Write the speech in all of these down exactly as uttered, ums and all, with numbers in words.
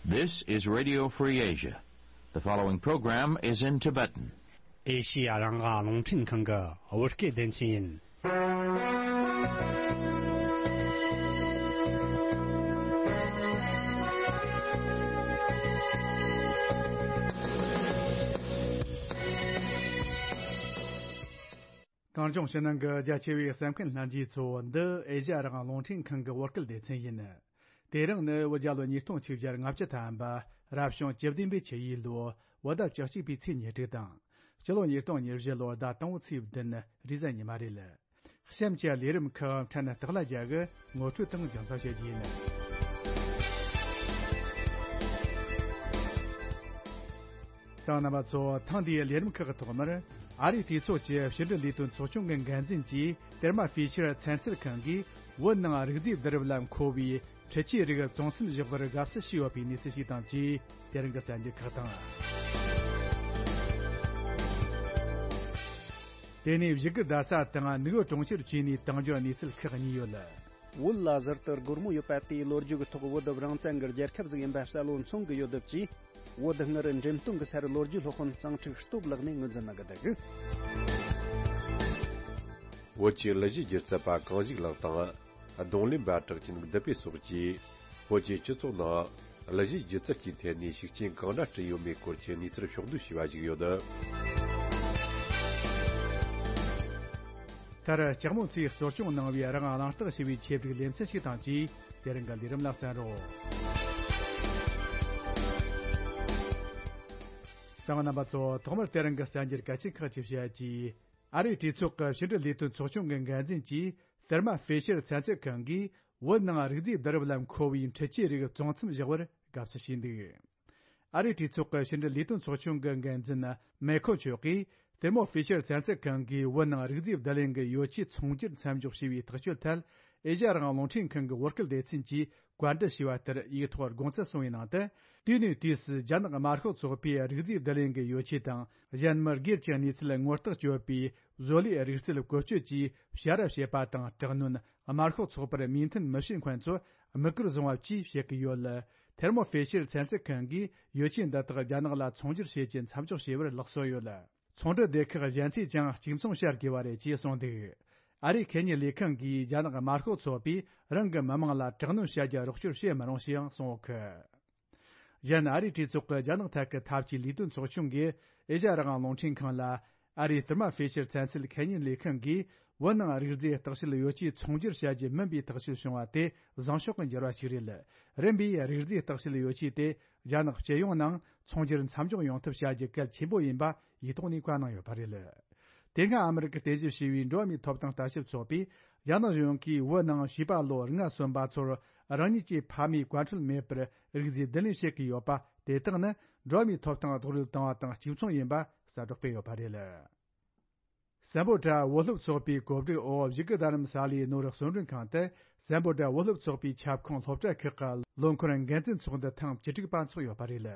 This is Radio Free Asia. The following program is in Tibetan. ཨེ་ཤི་ཡ་རང་དབང་རླུང་འཕྲིན་ཁང་གི་བོད་སྐད་སྡེ་ཚན་ཡིན། གངས་ལྗོངས་ཕྱི་ནང་གི་རྒྱ་ཆེ་བའི་གསན་མཁན་ལྷན་རྒྱས་ཚོ། འདི་ཨེ་ཤ་ཡ་རང་དབང་རླུང་འཕྲིན་ཁང་གི་བོད་སྐད་སྡེ་ཚན་ཡིན། དེ་རིང་ནི་བོད་རྒྱལ་ལོ་ཉིས་སྟོང་ཆིག་བརྒྱ་ལྔ་བཅུ་ཐམ་པ། རབ་བྱུང་བཅུ་བདུན་པའི་ཆུ་ཡོས་ལོ། བོད་ཟླ་བཅུ་གཅིག་པའི་ཚེས་ཉེར་དྲུག་དང་། སྤྱི་ལོ་ཉིས་སྟོང་ཉེར་བཞི་ལོ་ཟླ་དང་པོའི་ཚེས་བདུན། རེས་གཟའ་ཉི་མ་རེད། གཤམ་གྱི་ལས་རིམ་ཁག་འཕྲལ་སྟེགས་ལ་རྒྱག་གི་ངོ་སྤྲོད་དང་རྒྱང་སྲིང་བྱེད་རྒྱུ་ཡིན། གསན་མཁན་རྣམ་པ་ཚོ། ཐེངས་འདིའི་ལས་རིམ་ཁག་གི་ཐོག་མར། ཨ་རིའི་གྲོས་ཚོགས་ཀྱི་ཕྱི་འབྲེལ་ལས་དོན་ཚོགས་ཆུང་གི་འགན་འཛིན་གྱིས། ཐེར་མ་ཧྥེ་ཤར་ཚན་རྩལ་ཁང་གིས་བོད་ནང་རིག་རྫས་བསྡུ་རུབ་ལ་མཁོ་བའི་འཕྲུལ་ཆས་རིགས་བཙོང་མཚམས་བཞག་པར་དགའ་བསུ་ཞུས་ཡོད་པའི་གནས་ཚུལ་ཞིག་དང་བཅས། དེ་རིང་གི་གསར་འགྱུར་ཁག་དང་། དེ་ནས་བཞུགས་སྒར་རྡ་ས་དང་ནུབ་བོད་གྲོང་ཁྱེར་བཅས་ནས་དང་འབྱོར་གནས་ཚུལ་ཁག་གཉིས་ཡོད། བོད་ལ་ཟུར་དུ་སྒོར་མོ་ཡོད་པ་དེའི་ལོ་རྒྱུས་ཀྱི་ཐོག། བོད་རང་བཙན་གྱི་རྒྱལ་ཁབ་ཟིག་ཡིན་པ་གསལ་བོ་མཚོན་གྱི་ཡོད་སྟབས་ཀྱིས། བོད་སྔར་འགྲེམས་སྟོན་གྱི་སར་ལོ་རྒྱུས་སློབ་དཔོན་གཙང་ཁྲིག་སྟོབས་ལགས་ནས་ངོས་འཛིན་གནང་གི་འདུག། བོད་ཀྱི་གླུ་གཞས་སྒྱུ་རྩལ་པ་གངས་ཞིག་ལགས་དང་། རྡུང་ལེན་པ་གྲགས་ཅན་བདུད་བྷེ་སོགས་ཀྱིས། བོད་ཀྱི་སྤྱི་ཚོགས་ནང་གླུ་གཞས་སྒྱུ་རྩལ་གྱི་ཐད་ནས་ཤུགས་རྐྱེན་གང་འདྲ་བསྐྲུན་ཡོད་མེད་སྐོར་གྱི་གནས་ཚུལ་ཕྱོགས་བསྡུས་བྱས་པ་ཞིག་ཡོད། མཐར་ལྕགས་མོ་ཚོས་གཙོ་སྐྱོང་གནང་བའི་རང་དབང་གླེང་སྟེགས་ཞེས་པའི་ཆེད་བསྒྲིགས་ལེ་ཚན་ཞིག་དང་བཅས། དེ་རིང་གི་ལས་རིམ་ལ་གསན་རོགས། གསན་མཁན་རྣམ་པ་ཚོ། ཐོག་མར་དེ་རིང་གི་གསར་འགྱུར་གལ་ཆེན་ཁག་ཅིག་བཤད་རྒྱུ། ཨ་རིའི་གྲོས་ཚོགས་ཀྱི་ཕྱི་འབྲེལ་ལས་དོན་ཚོགས་ཆུང་གི་འགན་འཛིན་གྱིས། ཐེར་མ་ཧྥེ་ཤར་ཚན་རྩལ་ཁང་གིས་བོད་ནང་རིག་རྫས་བསྡུ་རུབ་ལ་མཁོ་བའི་འཕྲུལ་ཆས་རིགས་བཙོང་མཚམས་བཞག་པར་དགའ་བསུ་ཞུས་འདུག། ཨ་རིའི་གྲོས་ཚོགས་ཀྱི་ཕྱི་འབྲེལ་ལས་དོན་ཚོགས་ཆུང་གི་འགན་འཛིན་མེ་ཁོ་མཆོག་གིས། ཐེར་མོ་ཧྥེ་ཤར་ཚན་རྩལ་ཁང་གིས་བོད་ནང་རིག་རྫས་བསྡུ་ལེན་གྱི་ཡོ་ཆས་ཚོང་སྒྱུར་མཚམས་འཇོག་བྱས་པའི་ཐག་གཅོད་ཐད། ཨེ་ཤ་ཡ་རང་དབང་རླུང་འཕྲིན་ཁང་གི་བོད་སྐད་སྡེ་ཚན་གྱིས། བཀའ་འདྲི་ཞུས་པ་ལྟར་ཡིག་ཐོག་དགོངས་ཚུལ་གསུངས་པའི་ནང་དུ། དུས་ནས་དུས་སུ་རྒྱ་ནག་དམར་ཤོག་ཚོགས་པའི་རིག་རྫས་བསྡུ་ལེན་གྱི་ཡོ་ཆས་དང་། གཞན་མི་སྒེར་གྱི་གནས་ཚུལ་ངོ་རྟགས་བཅོལ་བའི་བཟོ་ལས་རིག་རྩལ་བཀོལ་སྤྱོད་ཀྱིས་ཕྱར་ར་བྱེད་པ་དང་། དྲག་གནོན། དམར་ཤོག་ཚོགས་པར་མོས་མཐུན་མི་བྱེད་མཁན་ཚོ་དམིགས་བཀར་བཟུང་བ་བཅས་བྱེད་ཀྱི་ཡོད། ཐེར་མོ་ཧྥེ་ཤར་ཚན་རྩལ་ཁང་གིས་ཡོ་ཆས་འདི་དག་རྒྱ་ནག་ལ་ཚོང་སྒྱུར་བྱེད་རྒྱུ་མཚམས་འཇོག་བྱས་པར་ལག་སོན་ཡོད། ཚོང་འབྲེལ་སྡེ་ཁག་གཞན་ཚོས་ཀྱང་གཅིག་མཚུངས་བྱ་དགོས་པ་རེད་ཅེས་གསུངས་འདུག། ཨ་རིའི་ཁེ་ཉིན་ལས་ཁང་གིས་རྒྱ་ནག་དམར་ཤོག་ཚོགས་པས་རང་གི་མི་དམངས་ལ་དྲག་གནོན་བྱ་རྒྱུ་རོགས་སྐྱོར་བྱེད་མི་རུང་ཞེས་ཡང་གསུངས་ཡོད་གི། གཞན། ཨ་རིའི་གྲོས་ཚོགས་ཀྱི་རྒྱ་ནག་ཐད་ཀྱི་འཐབ་ཇུས་ལས་དོན་ཚོགས་ཆུང་གིས་ཨེ་ཤ་ཡ་རང་དབང་རླུང་འཕྲིན་ཁང་ལ། ཨ་རིའི་ཐེར་མ་ཧྥེ་ཤར་ཚན་རྩལ་ཁེ་ཉིན་ལས་ཁང་གིས་བོད་ནང་རིག་རྫས་བརྟག་དཔྱད་ཡོ་ཆས་ཚོང་སྒྱུར་བྱ་རྒྱུ་མིན་པའི་ཐག་གཅོད་བྱུང་བ་དེ་བཟང་ཕྱོགས་ཀྱི་འགྱུར་བ་ཞིག་རེད། རིམ་པས་རིག་རྫས་བརྟག་དཔྱད་ཡོ་ཆས་དེ་རྒྱ་ནག་སྤྱི་ཡོངས་ནང་ཚོང་སྒྱུར་མཚམས་འཇོག་ཡོང་ཐབས་བྱ་རྒྱུ་གལ་ཆེན་པོ་ཡིན་པ་ཡིག་ཐོག་ནས་བཀའ་གནང་ཡོད་པ་རེད། དེ་སྔ་ཨ་མི་རི་ཀར་རྟེན་གཞི་བྱས་པའི་འགྲོ་བ་མིའི་ཐོབ་ཐང་ལྟ་ཞིབ་ཚོགས་པས། རྒྱ་ནག་གཞུང་གིས་བོད་ནང་བྱིས་པ་ལོ་ལྔ་སོན་པ་ཚོར་རང་ཉིད་ཀྱི་ཕ་མའི་བཀའ་འཁྲོལ་མེད་པར་རིག་རྫས་བསྡུ་ལེན་བྱེད་ཀྱི་ཡོད་པ་དེ་དག་ནི་འགྲོ་བ་མིའི་ཐོབ་ཐང་རྡོག་རོལ་བཏང་བ་དང་གཅིག་མཚུངས་ཡིན་པ་གསལ་བསྒྲགས་སྤེལ་ཡོད་པ་རེད། སམ་བྷོ་ཊ་བོད་སློབ་ཚོགས་པའི་གོ་སྒྲིག་འོག་བཞུགས་སྒར་རྡ་རམ་ས་ལའི་ནོར་གསོལ་མགྲོན་ཁང་དུ། སམ་བྷོ་ཊ་བོད་སློབ་ཚོགས་པའི་ཁྱབ་ཁོངས་སློབ་གྲྭ་ཁག་གི་ལོ་འཁོར་འགན་འཛིན་ཚོགས་འདུ་ཐེངས་བཅུ་དྲུག་པ་འཚོགས་ཡོད་པ་རེད།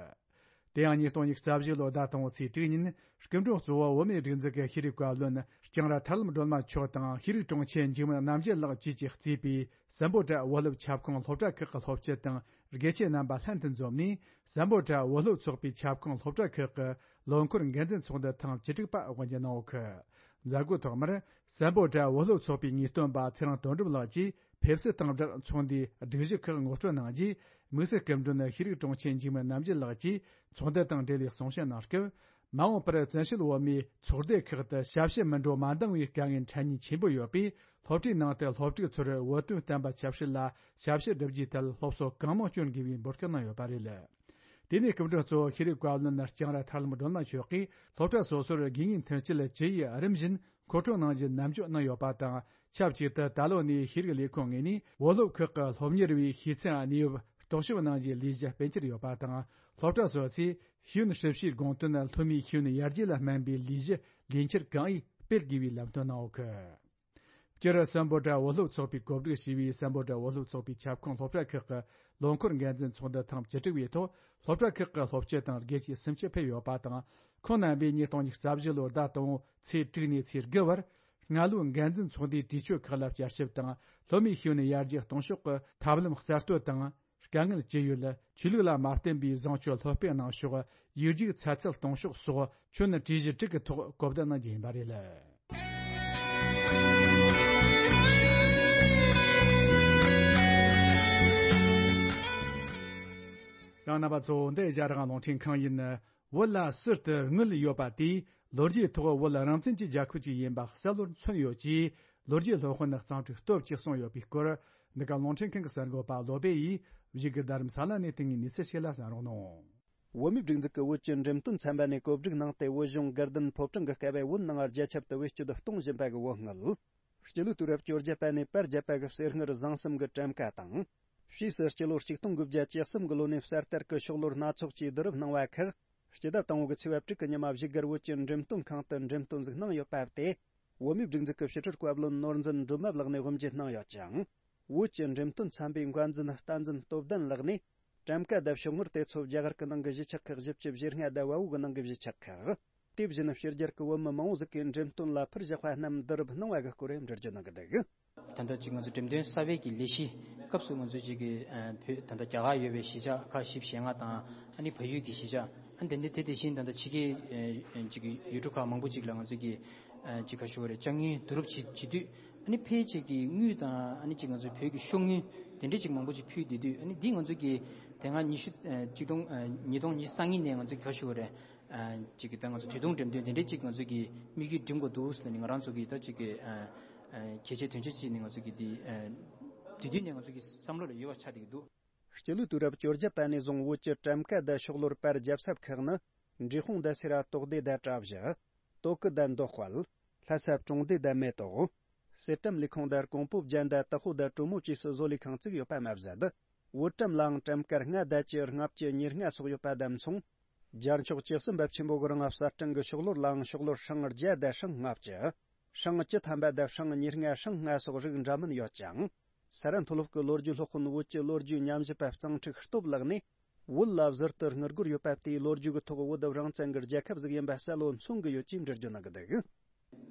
དེ་ཡང་ཉིས་སྟོང་ཉི་ཤུ་རྩ་བཞི་ལོའི་ཟླ་དང་པོའི་ཚེས་དྲུག་ཉིན། སྐུ་མགྲོན་གཙོ་བོ་བོད་མིའི་སྒྲིག་འཛུགས་ཀྱི་ཤེས་རིག་བཀའ་བློན་ལྕང་ར་ཐར་ལམ་སྒྲོལ་མ་མཆོག་དང་། ཤེས་རིག་དྲུང་ཆེ་འཇིགས་མེད་རྣམ་རྒྱལ་ལགས་བཅས་ཀྱིས་གཙོས་པའི་སམ་བྷོ་ཊ་བོད་སློབ་ཁྱབ་ཁོངས་སློབ་གྲྭ་ཁག་གི་སློབ་སྤྱི་དང་དགེ་ཆེ་རྣམ་པ་ལྷན་དུ་འཛོམས་ནས། སམ་བྷོ་ཊ་བོད་སློབ་ཚོགས་པའི་ཁྱབ་ཁོངས་སློབ་གྲྭ་ཁག་གི་ལོ་འཁོར་འགན་འཛིན་ཚོགས་འདུ་ཐེངས་བཅུ་དྲུག་པ་དབུ་འབྱེད་གནང་ཡོད་གི། མཛད་སྒོའི་ཐོག་མར། སམ་བྷོ་ཊ་བོད་སློབ་ཚོགས་པའི་ངེས་སྟོན་པ་ཚེ་རིང་དོན་གྲུབ་ལགས་ཀྱིས་ཕེབས་བསུ་དང་སྦྲགས་ཚོགས་འདུའི་སྒྲིག་གཞི་ཁག་ངོ་སྤྲོད་གནང་རྗེས། དམིགས་བསལ་སྐུ་མགྲོན་ཤེས་རིག་དྲུང་ཆེ་འཇིགས་མེད་རྣམ་རྒྱལ་ལགས་ཀྱིས་ཚོགས་འདུ་དང་འབྲེལ་བའི་གསུང་བཤད་གནང་སྐབས། མ་འོངས་པར་བཙན་བྱོལ་བོད་མིའི་ཚོགས་སྡེ་ཁག་ཏུ་ཞབས་ཕྱི་མི་འགྲོ་མ་འདང་བའི་དཀའ་ངལ་འཕྲད་ཉེན་ཆེན་པོ་ཡོད་པས། སློབ་གྲྭའི་ནང་དུ་སློབ་ཕྲུག་ཚོར་བོད་དོན་བསྟན་པ་ཆབ་སྲིད་ལ་ཞབས་ཕྱི་བསྒྲུབ་རྒྱུའི་ཐད་སློབ་གསོ་གང་མང་སྐྱོན་དགོས་པའི་འབོད་སྐུལ་གནང་ཡོད་པ་རེད། དེ་ནས་སྐུ་མགྲོན་གཙོ་བོ་ཤེས་རིག་བཀའ་བློན་ལྕང་ར་ཐར་ལམ་སྒྲོལ་མ་མཆོག་གིས། སློབ་གྲྭ་སོ་སོར་དགོས་ངེས་མཐུན་རྐྱེན་ཇི་ཡིན་རིམ་བཞིན་མཁོ་སྤྲོད་གནང་རྒྱུ་ནན་བརྗོད་གནང་ཡོད་པ་དང་། ཆབས་ཅིག་ཏུ་ད་ལོ་ནས་ཤེས་རིག་ལས་ཁུངས་ངོས་ནས་བོད་སློབ་ཁག་གི་སློབ་གཉེར་བའི་ཤེས་ཚད་གནས་བབ་རྟོག་ཞིབ་གནང་རྒྱུའི་ལས་གཞི་སྤེལ་གྱི་ཡོད་པ་དང་། སློབ་གྲྭ་སོ་སོས་ཤེས་ཡོན་ཞིབ་བཤེར་དགོངས་དོན་སློབ་མའི་ཤེས་ཡོན་ཡར་རྒྱས་ལ་སྨན་པའི་ལས་གཞི་ལས་འཁྱུར་གང་ཡོད་སྤེལ་དགོས་པའི་ལམ་སྟོན་གནང་ཡོད་གི། སྤྱིར་སམ་བྷོ་ཊ་བོད་སློབ་ཚོགས་པས་གོ་སྒྲིག་བྱས་པའི་སམ་བྷོ་ཊ་བོད་སློབ་ཚོགས་པའི་ཁྱབ་ཁོངས་སློབ་གྲྭ་ཁག་གི་ལོ་འཁོར་འགན་འཛིན་ཚོགས་འདུ་ཐེངས་བཅུ་དྲུག་པའི་ཐོག་སློབ་གྲྭ་ཁག་གི་སློབ་སྤྱི་དང་དགེ་ཆེ་སུམ་ཅུ་ཕེབས་ཡོད་པ་དང་། ཁོང་རྣམ་པས་ཉིས་སྟོང་ཉི་ཤུ་རྩ་བཞི་ལོའི་ཟླ་དང་པོ་ཚེས་དྲུག་ནས་ཚེས་དགུ་བར། སྔ་ལོའི་འགན་འཛིན་ཚོགས་འདུའི་གྲོས་ཆོད་ཁག་ལ་བསྐྱར་ཞིབ་དང་། སློབ་མའི་ཤེས་ཡོན་ཡར་རྒྱས་གཏོང་ཕྱོགས་ཀྱི་ཐབས་ལམ་གསར་གཏོད་དང་། དཀའ་ངལ་ཅི་ཡོད། ཆོས་ལུགས་ལ་མ་བརྟེན་པའི་བཟང་སྤྱོད་སློབ་སྤེལ་གནང་ཕྱོགས། ཡིག་རྒྱུགས་ཚ་ཚད་གཏོང་ཕྱོགས་སོགས་ཁྱོན་གྲོས་གཞི་དྲུག་གི་ཐོག་གོ་བསྡུར་གནང་རྒྱུ་ཡིན་པ་རེད། གསན་མཁན་རྣམ་པ་ཚོ། འདི་ཨེ་ཤ་ཡ་རང་དབང་རླུང་འཕྲིན་ཁང་ཡིན། བོད་ལ་ཟུར་དུ་དངུལ་ཡོད་པ་དེས་ལོ་རྒྱུས་ཐོག་བོད་རང་བཙན་གྱི་རྒྱལ་ཁབ་ཅིག་ཡིན་པ་གསལ་བོར་མཚོན་ཡོད་ཅེས་ལོ་རྒྱུས་སློབ་དཔོན་གཙང་ཕྲུག་སྟོབས་ཀྱིས་གསུངས་ཡོད་པའི་སྐོར། འདི་ག་རླུང་འཕྲིན་ཁང་གི་གསར་འགོད་པ་བློ་བྷེ་ཡིས་བཞུགས་སྒར་རྡ་རམ་ས་ལ་ནས་བཏང་བའི་གནས་ཚུལ་ཞིག་ལ་གསན་རོགས་གནང་། བོད་མིའི་སྒྲིག་འཛུགས་ཀྱི་བོད་ཀྱི་འགྲེམས་སྟོན་ཚན་པ་ནས་གོ་སྒྲིག་གནང་སྟེ། བོད་གཞུང་དགའ་ལྡན་ཕོ་བྲང་གི་སྐབས་བོད་ནང་རྒྱ་ཁྱབ་ཏུ་བེད་སྤྱོད་གཏོང་བཞིན་པ་གི་བོད་དངུལ། སྤྱི་ལོའི་དུས་རབས་བཅོ་བརྒྱད་པ་ནས་པར་བརྒྱབ་པ་གི་གསེར་དངུལ་བཟང་གསུམ་གྱི་གྲམ་ཀ་དང་། ཕྱིས་སུ་སྤྱི་ལོ་ཆིག་སྟོང་དགུ་བརྒྱ་བཅུ་གསུམ་གྱི་ལོ་ནས་གསར་དར་གྱི་ཤོག་ལོར་སྣ་ཚོགས་ཀྱིས་བསྡུ་རུབ་གནང་བ་ཁག་སྤྱི་ཟླ་དང་པོ་གི་ཚེས་པ་དྲུག་གི་ཉིན་མ་བཞུགས་སྒར་བོད་ཀྱི་འགྲེམས་སྟོན་ཁང་དུ་འགྲེམས་སྟོན་ཟིག་གནང་ཡོད་པ་དེ། བོད་མིའི་སྒྲིག་འཛུགས་ཀྱི་ཕྱི་དྲིལ་བཀའ་བློན་ནོར་འཛིན་སྒྲོལ་མ་ལགས་ནས་དབུ་འབྱེད་གནང་ཡོད་ཅིང་། བོད་ཀྱི་འགྲེམས་སྟོན་ཚན་པའི་འགོ་འཛིན་བསྟན་འཛིན་སྟོབས་ལྡན་ལགས་ནས། གྲམ་ཀ་དང་ཤོག་དངུལ་དེ་ཚོ་རྒྱ་གར་གྱི་ནང་གི་གཞིས་ཆགས་ཁག་བཞི་བཅུ་ཞེ་ལྔ་དང་བལ་པོ་གི་ནང་གི་གཞིས་ཆགས་ཁག་དེ་བཞིན་ཕྱི་རྒྱལ་གྱི་བོད་མི་མང་བོ་ཟིག་གིས་འགྲེམས་སྟོན་ལ་ཕུལ་བཞག་པ་རྣམས་བསྡུ་རུབ་གནང་བ་གི་སྐོར་འགྲེལ་བརྗོད་གནང་གི་འདུག། ད་ལྟ་ཅིག་ང་ཚོ་འགྲེམས་སྟོན་གསར་པའི་གི་ལས་གཞི་སྐབས་སུ་ང་ཚོ་ཅིག་གི་ཨ་བོད་ད་ལྟ་རྒྱ་གར་ཡོད་པའི་གཞིས་ཆགས་ཁག་བཞི་བཅུ་ཞེ་ལྔ་དང་ཨ་ནི་བལ་ཡུལ་གྱི་གཞིས་ཆགས། ཨ་ནི་དེ་འདྲ་དེ་དེ་བཞིན་ད་ལྟ་ཕྱི་རྒྱལ་ཨ་ཅིག་གི་ཡུལ་གྲུ་ཁག་མང་པོ་ཅིག་ལ་ང་ཚོ་གི་ཨ་ཅིག་ག་ཞུ་བ་རེད། ཅ་དངོས་བསྡུ་རུབ་བྱེད་བྱེད་དུས་ཨ་ནི་ཕལ་ཆེར་གྱི་དངུལ་དང་ཨ་ནི་ཅིག་ང་ཚོ་བོད་ཀྱི་ཤོག་དངུལ་དེ་འདྲ་ཅིག་མང་པོ་ཅིག་ཕུལ་བསྡད་དུས། ཨ་ནི་འདི་ང་ཚོ་གི་དེ་སྔ་ཉི་ཤུ་ཨ་ཆིག་སྟོང་ཨ་ཉིས་སྟོང་ཉི་ཤུ་རྩ་གཉིས་ནས་ང་ཚོ་གི་ག་ཞུ་བ་རེད། ཨ་ཅིག་གི་ད་ང་ཚོ་དུས་ཐུང་འགྲེམས་སྟོན་དེ་འདྲ་ཅིག་ང་ཚོ་གི་དམིགས་ཡུལ་འགྲིམ་དགོས་འདུག་ཟེར་ནས་ང་རང་ཚོ་གི་ད་ཅིག་གི་ཨ་ཨ་གལ་ཆེ་དོན་ཆེ་བྱས་ནས་ང་ཚོ་གི་འདི་ཨ་དུས་རྒྱུན་ནས་ང་ཚོ་གི་བསམ་བློ་ལ་ཡོད་པ་ཆགས་བསྡད་ཀྱི་འདུག། སྤྱི་ལོའི་དུས་རབས་བཅོ་བརྒྱད་པ་ནས་བཟུང་བོད་ཀྱི་གྲམ་ཀ་དང་ཤོག་ལོར་པར་རྒྱབ་ས་ཁག་ནི། འབྲས་སྤུངས་དང་སེ་ར་དོག་སྡེ་དང་བྲག་བཞི། སྟོད་གི་དང་མདོ་དཔལ། ལྷ་ས་གྲོང་སྡེ་དང་མེ་ཏོག། གསེར་ཀྲམ་ལས་ཁུངས་དང་ཀོང་པོ་བྱན་དང་དྭགས་པོ་དང་གྲོ་མོ་བཅས་སུ་བཟོ་ལས་ཁང་བཙུགས་ཡོད་པ་མ་ཟད། བོད་ཀྲམ་ལའང་གྲམ་ཀ་ལྔ་དང་བཅུ། ལྔ་བཅུ། ཉེར་ལྔ་སོགས་ཡོད་པ་དང་མཚུངས། རྒྱལ་མཆོག་བཅུ་གསུམ་པ་ཆེན་པོ་གི་རིང་གསར་སྐྲུན་གྱི་ཤོག་ལོར་ལའང་ཤོག་ལོར་སྲང་བརྒྱ་དང་སྲང་ལྔ་བཅུ། སྲང་བཅུ་ཐམ་པ་དང་སྲང་ཉེར་ལྔ། སྲང་ལྔ་སོགས་རིགས་འདྲ་མིན་ཡོད་ཅིང་། ས་རཱ་མཐོ་སློབ་ཀྱི་ལོ་རྒྱུས་སློབ་དཔོན་བོད་ཀྱི་ལོ་རྒྱུས་ཉམས་ཞིབ་པ་གཙང་ཕྲུག་སྟོབས་ལགས་ནས། བོད་ལ་ཟུར་དུ་དངུལ་སྒོར་ཡོད་པ་དེའི་ལོ་རྒྱུས་ཀྱི་ཐོག་བོད་རང་བཙན་གྱི་རྒྱལ་ཁབ་ཟིག་ཡིན་པ་གསལ་བོ་མཚོན་གྱི་ཡོད་ཅེས་འགྲེལ་བརྗོད་གནང་གི་འདུག།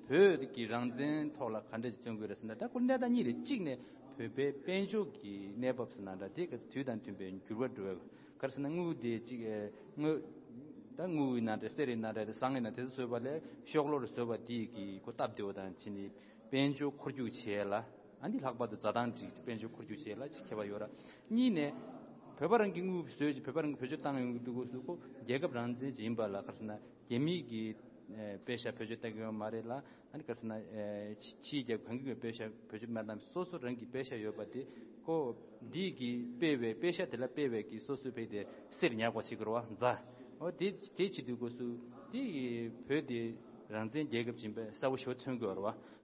བོད་ཀྱི་རང་བཙན་ཐོག་ལ་ག་འདྲ་ཞིག་བརྩོན་དགོས་རེད་ཟེར་ན། ད་ཁོ་གནས་སྟངས་གཉིས་རེད། གཅིག་ནས་བོད་པའི་དཔལ་འབྱོར་གྱི་གནས་བབ་ཟེར་ན་འདྲ། དེ་ག་དུས་དང་མཐུན་པའི་འགྱུར་བ་འགྲོ་བའི་ག་རེ་ཟེར་ན། དངུལ་དེ་གཅིག་ཨེ་དངུལ་ད་དངུལ་ཡིན་ན་འདྲ། གསེར་ཡིན་ན་འདྲ། དེ་ཟངས་ཡིན་ན། དེ་ཚོ་བཟོས་པ་ལས་ཤོག་ལོར་བཟོས་པ་དེ་གི་ཁོ་སྟབས་བདེ་བ་དང་བྱས་ནས། དཔལ་འབྱོར་འཁོར་རྒྱུག་བྱེད་ཡ་ལ། ཨ་ནི་ལྷག་པར་དུ་འཛའ་ཐང་ཅིག་དཔལ་འབྱོར་འཁོར་རྒྱུག་བྱེད་ཡ་ལ་ཅིག་ཁྱད་པར་ཡོད་ར། གཉིས་ནས་བོད་པ་རང་གི་དངུལ་བཟོས་ཅིག་བོད་པ་རང་གི་བེད་སྤྱོད་བཏང་ཡོང་གི་འདུག་གོ་ཟེར། ཁོ་རྒྱལ་ཁབ་རང་བཙན་ཅིག་ཡིན་པ་ལ་ག་རེ་ཟེར་ན། རྒྱ་མིའི་གི་ཨེ་པེ་ཤ་བེད་སྤྱོད་བཏང་གི་ཡོད་མ་རེད་ལ། ཨ་ནི་ག་རེ་ཟེར་ན། ཨེ་ཕྱི་ཕྱིའི་རྒྱལ་ཁབ་གང་གི་པེ་ཤ་བེད་སྤྱོད་མ་བཏང་། སོ་སོ་རང་གི་པེ་ཤ་ཡོད་པ་དེ་ཁོ་འདི་གི་སྤེལ་བའི་པེ་ཤ་དེ་ལ་སྤེལ་བའི་གི་སོ་སོའི་བོད་དེ་གསེར་ཉར་དགོས་ཞིག་གི་རེད་བ། འཛའ། འོ་དེ་དེ་བྱེད་དུས་སྐབས་སུ་དེ་བོད་དེ་རང་བཙན་རྒྱལ་ཁབ་ཅིག་ཡིན་པ་གསལ་པོ་ཞེ་པོ་མཚོན་གྱི་ཡོད་རེད་བ།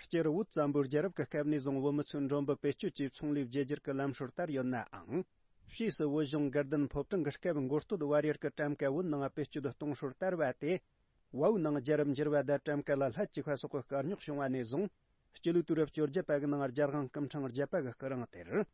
སྤྱིར་བོད་བཙན་པོའི་རྒྱལ་རབས་ཀྱི་སྐབས་ནས་བཟུང་བོད་མི་ཚོས་མགྲོན་པོ་བེད་སྤྱོད་ཀྱིས་ཚོང་ལས་བརྗེ་བསྒྱུར་གྱི་ལམ་སྲོལ་དར་ཡོད་ནའང་། ཕྱིས་སུ་བོད་གཞུང་དགའ་ལྡན་ཕོ་བྲང་གི་སྐབས་མགོ་སྟོད་བར་ཡུལ་གྱི་གྲམ་ཀ་བོད་ནང་བེད་སྤྱོད་གཏོང་སྲོལ་དར་བ་དེ། བལ་པོའི་ནང་རྒྱལ་རབས་འགྱུར་བ་དང་གྲམ་ཀ་ལ་ལྷད་བཅུག་པ་སོགས་ཀྱི་སྐར་རྙོག་བྱུང་བ་ནས་བཟུང་། སྤྱི་ལོའི་དུས་རབས་བཅོ་བརྒྱད་པ་གི་ནང་རྒྱལ་དབང་སྐུ་ཕྲེང་བརྒྱད་པ་གི་སྐུ་རིང་དེར།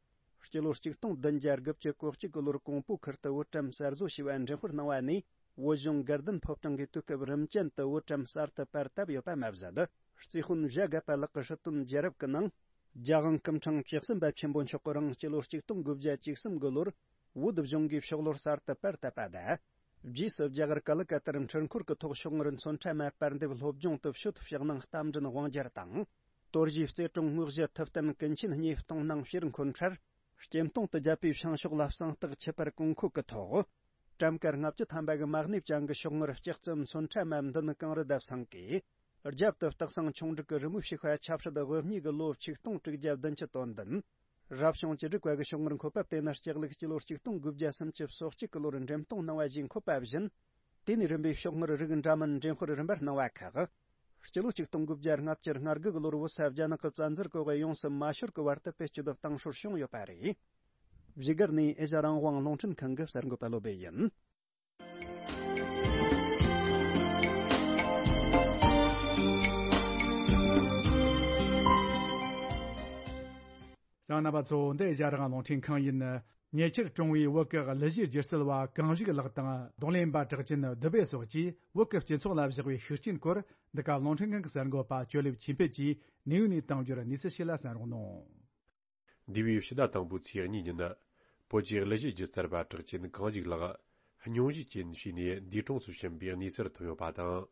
སྤྱི་ལོ་ཆིག་སྟོང་བདུན་བརྒྱ་དགུ་བཅུ་གོ་གཅིག་གི་ལོར་ཀོང་པོ་ཁུལ་དུ་བོད་ཀྲམ་གསར་བཟོ་བྱས་པ་འགྲེམས་སྤེལ་གནང་བ་ནས། བོད་གཞུང་དགའ་ལྡན་ཕོ་བྲང་གིས་དུས་སྐབས་རིམ་ཅན་དུ་བོད་ཀྲམ་གསར་དུ་པར་བཏབ་ཡོད་པ་མ་ཟད། རྩིས་དཔོན་བྱ་དགའ་པ་ལགས་ཀྱི་ཧྲིལ་བཏོན་རྒྱལ་རབས་ཀྱི་ནང་། རྒྱལ་དབང་སྐུ་ཕྲེང་བཅུ་གསུམ་པ་ཆེན་པོ་མཆོག་གི་རིང་སྤྱི་ལོ་ཆིག་སྟོང་དགུ་བརྒྱ་བཅུ་གསུམ་གི་ལོར་བོད་གཞུང་གིས་ཤོག་ལོར་གསར་དུ་པར་བཏབ་པ་དང་། རྗེས་སུ་རྒྱ་གར་ཀ་ལི་ཀ་ཏར་འཕྲུལ་འཁོར་གྱི་ཐོག་ཤོག་དངུལ་མཚོན་ཁྲ་མ་པར་འདེབས་སློབ་སྦྱོང་དུ་ཕྱོགས་ཕྱག་ནང་རྟ་མགྲིན་དབང་རྒྱལ་དང་། དོར་ཞིའི་རྩེ་གྲོང་དངོས་གཞི་ཐུབ་བསྟན་ཀུན་མཁྱེན་གཉིས་གཏོང་གནང་ཕྱིར་འཁོན་འཕྲལ། སྐྱེམ་སྟོང་དུ་བརྒྱབ་པའི་བྱང་ཕྱོགས་ལ་གསང་སྟེགས་ཆུ་བར་གོང་འཁོད་ཀྱི་ཐོག་ཀྲམ་ཀ་ལྔ་བཅུ་ཐམ་པ་གི་མ་གནས་ཅན་གྱི་ཤོག་དངུལ་ལྕགས་རྩི་མཚོན་ཁྲ་མ་མདུན་གང་རུ་བརྡབས་སང་གིས། རྒྱབ་ཏུ་སྟག་ཚང་ཆུང་འབྲུག་གི་རི་མོ་ཞིག་པ་ཆབ་སྲིད་དབུ་བརྙེས་ཀྱི་ལོ་ཆིག་སྟོང་དྲུག་བརྒྱ་བདུན་ཅུ་དོན་བདུན། རབ་བྱུང་བཅུ་དྲུག་པ་གི་ཤོག་དངུལ་འཁོད་པ་དེ་ནི་ལྕགས་ལུག་སྤྱི་ལོ་ཆིག་སྟོང་དགུ་བརྒྱ་སུམ་ཅུ་སོ་གཅིག་གི་ལོར་འགྲེམས་སྟོན་གནང་བ་ཞིག་འཁོད་པ་བཞིན། དེ་ནས་རིམ་པས་ཤོག་དངུལ་རིགས་འདྲ་མིན་འགྲེམས་སྤེལ་རིམ་པར་གནང་བ་ཁག་སྤྱི་ལོ་ཆིག་སྟོང་དགུ་བརྒྱ་ལྔ་བཅུ་ང་དགུ་གི་ལོར་བོད་ས་རྒྱ་ནག་གི་བཙན་འཛུལ་འོག་ཡོངས་སུ་མ་ཤོར་གྱི་བར་དུ་བེད་སྤྱོད་བཏང་སྲོལ་བྱུང་ཡོད་པ་རེད། བཞུགས་སྒར་ནས་ཨེ་ཤ་རང་དབང་རླུང་འཕྲིན་ཁང་གི་གསར་འགོད་པ་བློ་བྷེ་ཡིན། གསན་མཁན་རྣམ་པ་ཚོ། འདི་ཨེ་ཤ་རང་དབང་རླུང་འཕྲིན་ཁང་ཡིན། ཉེ་ཆར་གྲོངས་པའི་བོད་ཀྱི་གླུ་གཞས་སྒྱུ་རྩལ་བ་གངས་རིགས་ལགས་དང་རྡུང་ལེན་པ་གྲགས་ཅན་བདུད་བྷེ་སོགས་ཀྱིས་བོད་ཀྱི་སྤྱི་ཚོགས་ལ་བཞག་པའི་ཤུགས་རྐྱེན་སྐོར། འདི་ག་རླུང་འཕྲིན་ཁང་གི་གསར་འགོད་པ་ཇོ་ལེབ་ཆོས་འཕེལ་གྱིས་ནེའུ་ནས་བཏང་རྒྱུར་གནས་ཚུལ་ཞིག་ལ་གསན་རོགས་གནང་། འདས་པའི་ཕྱི་ཟླ་དང་པོའི་ཚེས་གཉིས་ཉིན། བོད་ཀྱི་གླུ་གཞས་སྒྱུ་རྩལ་པ་གྲགས་ཅན་གངས་ཞིག་ལགས་སྙུང་གཞི་ཅན་ཞིག་ནས་འདས་གྲོངས་སུ་ཕྱིན་པའི་གནས་ཚུལ་ཐོན་ཡོད་པ་དང་།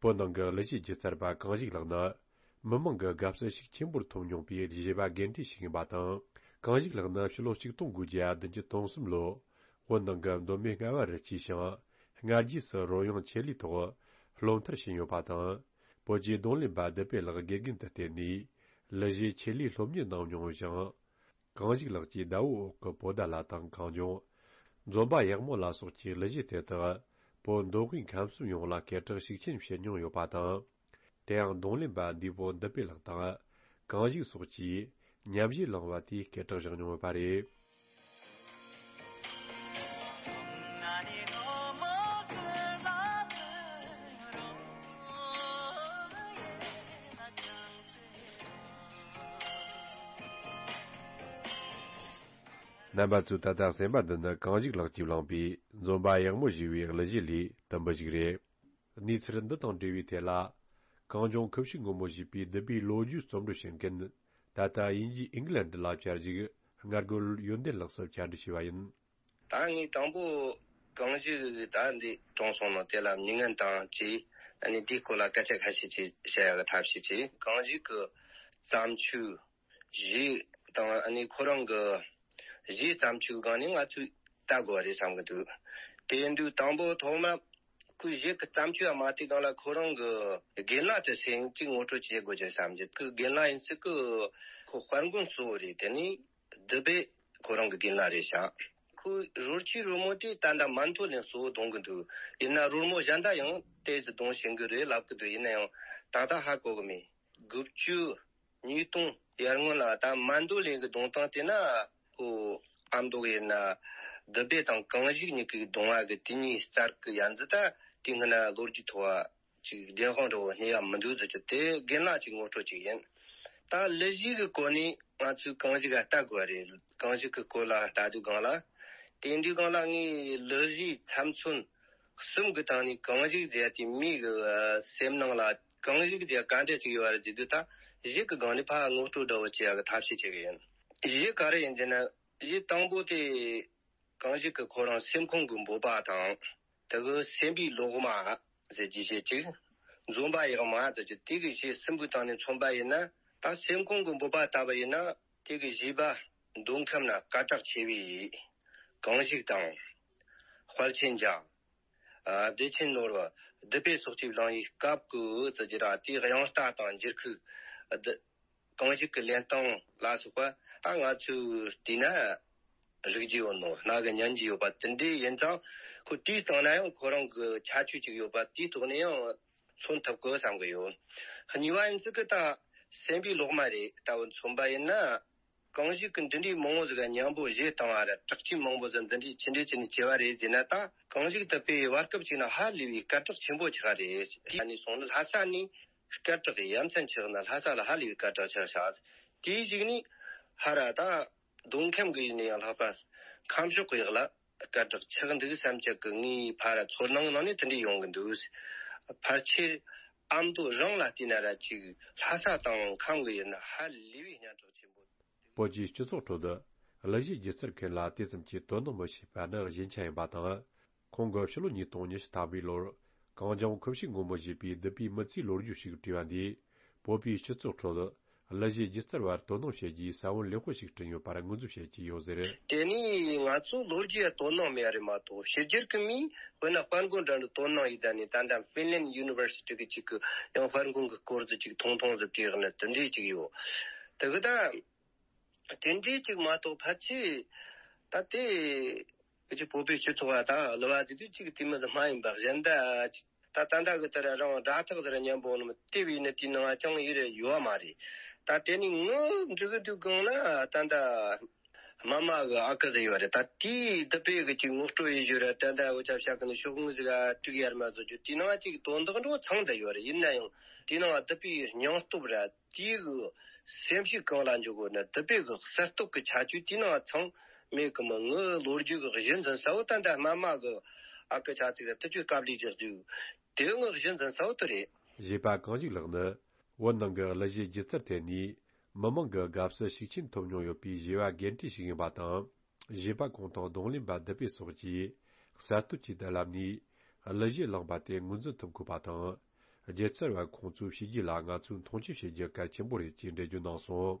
བོད་ནང་གི་གླུ་གཞས་སྒྱུ་རྩལ་པ་གངས་ཞིག་ལགས་ནི། མི་མང་གི་དགའ་བསུ་ཤུགས་ཆེན་པོར་ཐོབ་མྱོང་པའི་གཞས་པ་རྒན་གྲས་ཤིག་ཡིན་པ་དང་། གངས་ཞིག་ལགས་ནི་ཕྱི་ལོ་ཆིག་སྟོང་དགུ་བརྒྱ་བདུན་ཅུ་དོན་གསུམ་ལོ། བོད་ནང་གི་མདོ་སྨད་རྔ་བ་རུ་སྐྱེས་ཤིང་། སྔ་རྗེས་སུ་རོལ་དབྱངས་ཆེད་ལས་ཐོག་སློབ་མཐར་ཕྱིན་ཡོད་པ་དང་། བོད་ཀྱི་རྡུང་ལེན་པ་བདུད་བྷེ་ལགས་དགེ་རྒན་དུ་བསྟེན་ནས། གླུ་གཞས་ཆེད་ལས་སློབ་གཉེར་གནང་མྱོང་ཞིང་། གངས་ཞིག་ལགས་ཀྱི་ཟླ་བོའི་འོག་གི་བོད་ཟླ་ལ་དང་གངས་ལྗོངས། འཛོམས་པ་ཡག་མོ་ལ་སོགས་ཀྱི་གླུ་གཞས་དེ་དག་བོད་མདོ་དབུས་ཁམས་གསུམ་ཡོངས་ལ་སྐད་གྲགས་ཤུགས་ཆེན་བྱེད་མྱོང་ཡོད་པ་དང་། དེ་ཡང་རྡུང་ལེན་པ་འདས་པོ་བདུད་བྷེ་ལགས་དང་། གངས་ཞིག་སོགས་ཀྱིས་མཉམ་གཞས་བླངས་པ་དེས་སྐད་གྲགས་བཞག་མྱོང་ཡོད་པ་རེད། རྣམ་པ་ཚོས་ད་ལྟ་གསན་པ་འདི་ནི་གངས་ཞིག་ལགས་ཀྱིས་བླངས་པའི་འཛོམས་པ་ཡག་མོ་ཞེས་པའི་གླུ་གཞས་ལས་དུམ་བུ་ཞིག་རེད། གནས་ཚུལ་འདི་དང་འབྲེལ་བའི་ཐད་ལ། གངས་ལྗོངས་ཁུ་བྱུག་སྔོན་མོ་ཞེས་པའི་བདུད་བྷེའི་ལོ་རྒྱུས་རྩོམ་སྒྲིག་བྱེད་མཁན། ད་ལྟ་དབྱིན་ཇིའི་ཨིང་ལན་ཌི་ལ་བཅར་བཞུགས་སྔ་རྒོལ་ཡོན་ཏན་ལགས་སུ་བཅར་འདྲི་ཞུས་པ་ཡིན། ད་ངས་དང་པོ་གངས་ཞིག་ད་འདི་གྲོངས་སོང་ནོ་དེ་ལ་མྱི་ངན་དང་བཅས་ཨ་ནི་འདིའི་སྐོར་ལ་སྐད་ཆ་ཁ་ཤས་ཅིག་བཤད་ཡག་གི་ཐབས་ཤེས་ཀྱིས། གངས་ཞིག་གི་བརྩམས་ཆོས་གཞས་དང་ཨ་ནི་ཁོ་རང་གི་གཞས་བརྩམས་ཆོས་སྒང་ནས་ང་ཚོས་ལྟ་དགོས་པ་རེད་བསམ་གི་འདུག་དེ་ཡིན་དུས་དང་པོ་ཐོག་མ་ཁོའི་གཞས་ཀྱི་བརྩམས་ཆོས་ཡང་མ་བལྟས་སྒང་ལ་ཁོ་རང་གི་རྒན་ལགས་དེ་སེམས་ཅིག་ངོ་སྤྲོད་བྱེད་དགོས་ཀྱི་བསམ་གྱི། ཁོའི་རྒན་ལགས་ཡིན་སྲིད་ཀི་ཁོ་དཔལ་མགོན་གཙོ་བོ་རེད། དེ་ནས་བདུད་བྷེ་ཁོ་རང་གི་རྒན་ལགས་རེད་ཤག་ཁོའི་རོལ་ཆས་རོལ་མོ་དེ་ད་ལྟ་མན་ཐོ་ལན་གཙོ་བོ་གཏོང་གི་འདུག་ཡིན་ན་རོལ་མོ་གཞན་དག་ཡང་ཏོག་ཙམ་གཏོང་ཤེས་ཀྱི་རེད་ལབ་ཀྱི་འདུག་ཡིན་ན་ཡང་ད་ལྟ་ཧ་གོ་གི་མེད། དགུ་བཅུ། ཉིས་སྟོང་ཡར་སྔོན་ལ་ད་མན་ཐོ་ལན་གྱི་གདུང་ཐང་དེ་ན་ཁོ་ཨ་མདོ་ཡིན་ན་བདུད་བྷེ་དང་གངས་ཞིག་གཉིས་ཀྱི་གདུང་བ་གི་དེ་གཉིས་རྩར་གི་ཡ་མཚན་ད་དེ་སྔ་ན་ལོ་རྒྱུས་ཐོག་ཅིག་བདེན་དཔང་འདྲ་བོ་རྙེད་ཡ་མི་འདུག་ཟེར་གྱི། དེ་རྒན་ལགས་ཀྱི་ངོ་སྤྲོད་ཅིག་ཡིན། ད་གླུ་གཞས་ཀྱི་སྐོར་ནས་ང་ཚོས་གངས་ཞིག་ག་ལྟ་དགོས་པ་རེད། གངས་ཞིག་གི་སྐོར་ལ་ལྟ་དུས་སྒང་ལ། དེ་འདྲའི་སྒང་ལ་ངས་གླུ་གཞས་ཚབ་མཚོན་གསུམ་གྱི་སྟེང་ནས་གངས་ཞིག་ཟེར་ཡ་དེ་མིའི་གི་སེམས་ནང་ལ་གངས་ཞིག་ཟེར་ཡ་ག་འདྲ་ཅིག་ཡོད་པ་རེད་ཟེར་དུས། ད་གཞས་ཀྱི་སྒང་ནས་ཕར་ངོ་སྤྲོད་འདྲ་བོ་བྱེད་ཡ་གི་ཐབས་ཤེས་བྱེད་གི་ཡིན། གཞས་ག་རེ་ཡིན་ཟེར་ན། གཞས་དང་པོ་དེ་གངས་ཞིག་གི་ཁོ་རང་སེམས་ཁོང་གི་འབོད་པ་དང་། དེ་གི་སེམས་པའི་ལོག་མ་ཟེར་གྱི་གཞས་གཅིག་འཛོམས་པ་ཡག་མ་ཟེར་གྱི་དེ་གི་གཞས་གསུམ་པོའི་སྟེང་ནས་མཚོན་པ་ཡིན་ན། ད་སེམས་ཁོང་གི་འབོད་པ་ལྟ་བུ་ཡིན་ན། དེ་གི་གཞས་པ་མདོ་ཁམས་ན་སྐད་གྲགས་ཆེ་བའི་གངས་ཞིག་དང་། དཔལ་ཆེན་རྒྱལ། ཨ། བདེ་ཆེན་ནོར་བུ། བདུད་བྷེ་སོགས་ཀྱིས་བླངས་པའི་སྐབས་ཀྱི་ཟེར་གྱི་ར། དེའི་དབྱངས་རྟ་དང་འགྱུར་ཁུག་བདུད། གངས་ཞིག་གི་ལེན་སྟངས་ལ་སོགས་པ་ད་ང་ཚོས་བལྟས་ན་རིག་རྒྱུ་ཡོད་ནོ། རྣ་གིས་ཉན་རྒྱུ་ཡོད་པ་དེ་འདྲའི་ཡིན་ཙང་། ཁོ་དེའི་སྟེང་ན་ཡང་ཁོ་རང་གི་ཁྱད་ཆོས་ཅིག་ཡོད་པ་དེའི་ཐོག་ནས་ཡང་མཚོན་ཐུབ་དགོས་བསམ་གི་ཡོད། གཉིས་པ་ཡིན་ཚུལ་གི་ད་སེམས་པའི་ལོག་མ་རེད། ད་བུ་མཚོན་པ་ཡིན་ན། གངས་ཞིག་གི་འདི་འདྲའི་མང་བོ་ཟིག་ག་མཉམ་པོ་གཞས་བཏང་བ་ར། གྲགས་ཆེན་མང་བོ་ཟིག་འདི་འདྲའི་ཆི་འདྲའི་ཆི་ནས་བྱས་པ་རེད་ཟེར་ན། ད་གངས་ཞིག་བདུད་བྷེ་བར་སྐབས་ཅིག་ན་ཧ་ལས་པའི་སྐད་གྲགས་ཆེན་པོ་ཆགས་རེད། དེ་ནས་སོང་ན་ལྷ་ས་ནས་སྐད་གྲགས་ཡ་མཚན་ཆགས་ན། ལྷ་ས་ལ་ཧ་ལས་པའི་སྐད་གྲགས་ཆགས་ཤག་དེའི་གཞུག་ནས་ཧ་ར་ད་མདོ་ཁམས་གི་ཡིན་ན་ཡང་ལྷག་པར་ཁམས་ཕྱོགས་གི་ཡག་ལ་སྐད་གྲགས་ཆགས་འདུག་བསམ་ཅིག་གི་ངའི་ཕ་ར་ཚོར་སྣང་ནང་ནས་དེ་འདྲ་ཡོང་གི་འདུག་ཕལ་ཆེར་ཨ་མདོ་རང་ལ་བལྟས་ན་ར་ཅིག་ལྷ་ས་དང་ཁམས་གི་ཡིན་ན་ཧ་ལས་པའི་སྙན་གྲགས་ཆེན་པོ། བོད་ཀྱི་སྤྱི་ཚོགས་ཁྲོད་དུ་གླུ་གཞས་སྒྱུ་རྩལ་མཁན་ལ་དེ་ཙམ་གྱི་དོ་སྣང་མི་བྱེད་པ་ནི་གཞན་ཆ་ཡིན་པ་དང་། ཁོང་གིས་ཕྱི་ལོ་ཉིས་སྟོང་ཉི་ཤུ་ཐམ་པའི་ལོར་གངས་ལྗོངས་ཁུ་བྱུག་སྔོན་མོ་ཞེས་པའི་བདུད་བྷེའི་མི་ཚེའི་ལོ་རྒྱུས་ཤིག་བྲིས་པ་འདིས། བོད་པའི་སྤྱི་ཚོགས་ཁྲོད་གླུ་གཞས་སྒྱུ་རྩལ་བར་དོ་སྣང་བྱེད་རྒྱུའི་ས་བོན་ལེགས་པོ་ཞིག་བསྐྲུན་ཡོད་པར་ངོས་འཛིན་བྱེད་ཀྱི་ཡོད་ཟེར། དེ་ནས་ང་ཚོ་ལོ་རྒྱུས་ལ་དོ་སྣང་མེད་པ་རེད་མ་གཏོགས། ཕྱི་རྒྱལ་གྱི་མིས་དཔེར་ན་དཔལ་མགོན་འདྲ་འདྲ་དོ་སྣང་ཡོད། ད་ནི་ད་ལྟ་ཧྥིན་ལན་ཡུ་ནི་ཝར་སི་ཊི་གི་ཅིག་གི་ཡང་དཔལ་མགོན་གྱི་སྐོར་ཟིག་ཅིག་ཐུང་ཐུང་ཟིག་བྲིས་ནི་དེ་འདྲས་ཅིག་ཡོད། དེ་གི་ད། དེ་འདྲའི་ཅིག་མ་གཏོགས་ཕལ་ཆེར་ད་ལྟའི་ཀྱི་བོད་པའི་སྤྱི་ཚོགས་པ་དང་གླུ་བ་དེ་དུས་ཅིག་དེ་མི་ཟིག་མ་ཡིན་པ་གཞན་དག་ཅིག་ད་ད་ལྟ་གི་དེར་རང་སྒྲ་ཐག་ཟེར་མཉམ་པོ་ནི་དེ་བས་ནི་དེའི་ནང་ཅང་ཡིད་རེ་ཡོད་མ་རེད། ད་དེ་ནི་ངུ་འབྲི་གི་དུས་གང་ན་ད་ལྟ་མ་མ་གི་ཨ་ཁུ་ཟེར་ཡོད་རེད། ད་དེའི་བདུད་བྷེ་གི་ཅིག་ངོ་སྤྲོད་ཡེ་ཞུ་ར། ད་ལྟ་འུ་ཅག་བཤད་གི་ནི་ཤོག་ངོས་ཟིག་ག་དཀྲུག་ཡར་མ་བཟོ་རྒྱུ་དེའི་ནང་ཅིག་དོན་དག་འགྲོ་ཚང་ད་ཡོད་རེད། ཡིན་ན་ཡང་དེའི་ནང་བདུད་བྷེའི་སྙིང་སྟོབས་ར། དེའི་གི་སེམས་ཤུགས་གང་ལ་འཇུག་དགོས་ན། བདུད་བྷེ་གི་གསར་གཏོད་ཀྱི་ཁྱད་ཆོས་དེའི་ནང་ཚང་མེད་གི་མོ། ངའི་ལོ་རྒྱུས་ཀྱི་གཞི་འཛིན་ས་བོ་ད་ལྟ་མ་མ་གི་ཨ་ཁུ་ཆ་ཚིག་ར་དེ་ཚོས་དཀའ་ལས་རྒྱག་རྒྱུ་དེ་ངའི་གཞི་འཛིན་ས་བོ་དེ་རེད། གཞས་པ་གངས་ཞིག་ལགས་ནི་བོད་ནང་གི་གླུ་གཞས་སྒྱུ་རྩལ་ཐད་ནས་མི་མང་གི་དགའ་བསུ་ཤུགས་ཆེན་ཐོབ་མྱོང་ཡོད་པའི་གཞས་པ་རྒན་གྲས་ཤིག་ཡིན་པ་དང་། བཞེས་པ་ཁོང་དང་གདོང་ལེན་པ་བདུད་བྷེ་སོགས་ཀྱིས་གསར་གཏོད་ཀྱི་བརྡ་ལམ་ནས་གླུ་གཞས་བླངས་པ་དེ་ངོས་འཛིན་ཐུབ་དགོས་པ་དང་། སྒྱུ་རྩལ་བ་ཁོང་ཚོའི་བྱས་རྗེས་ལ་ང་ཚོས་མཐོང་ཆེན་བྱེད་རྒྱུ་གལ་ཆེན་པོ་རེད་ཅེས་འགྲེལ་བརྗོད་གནང་སོང་།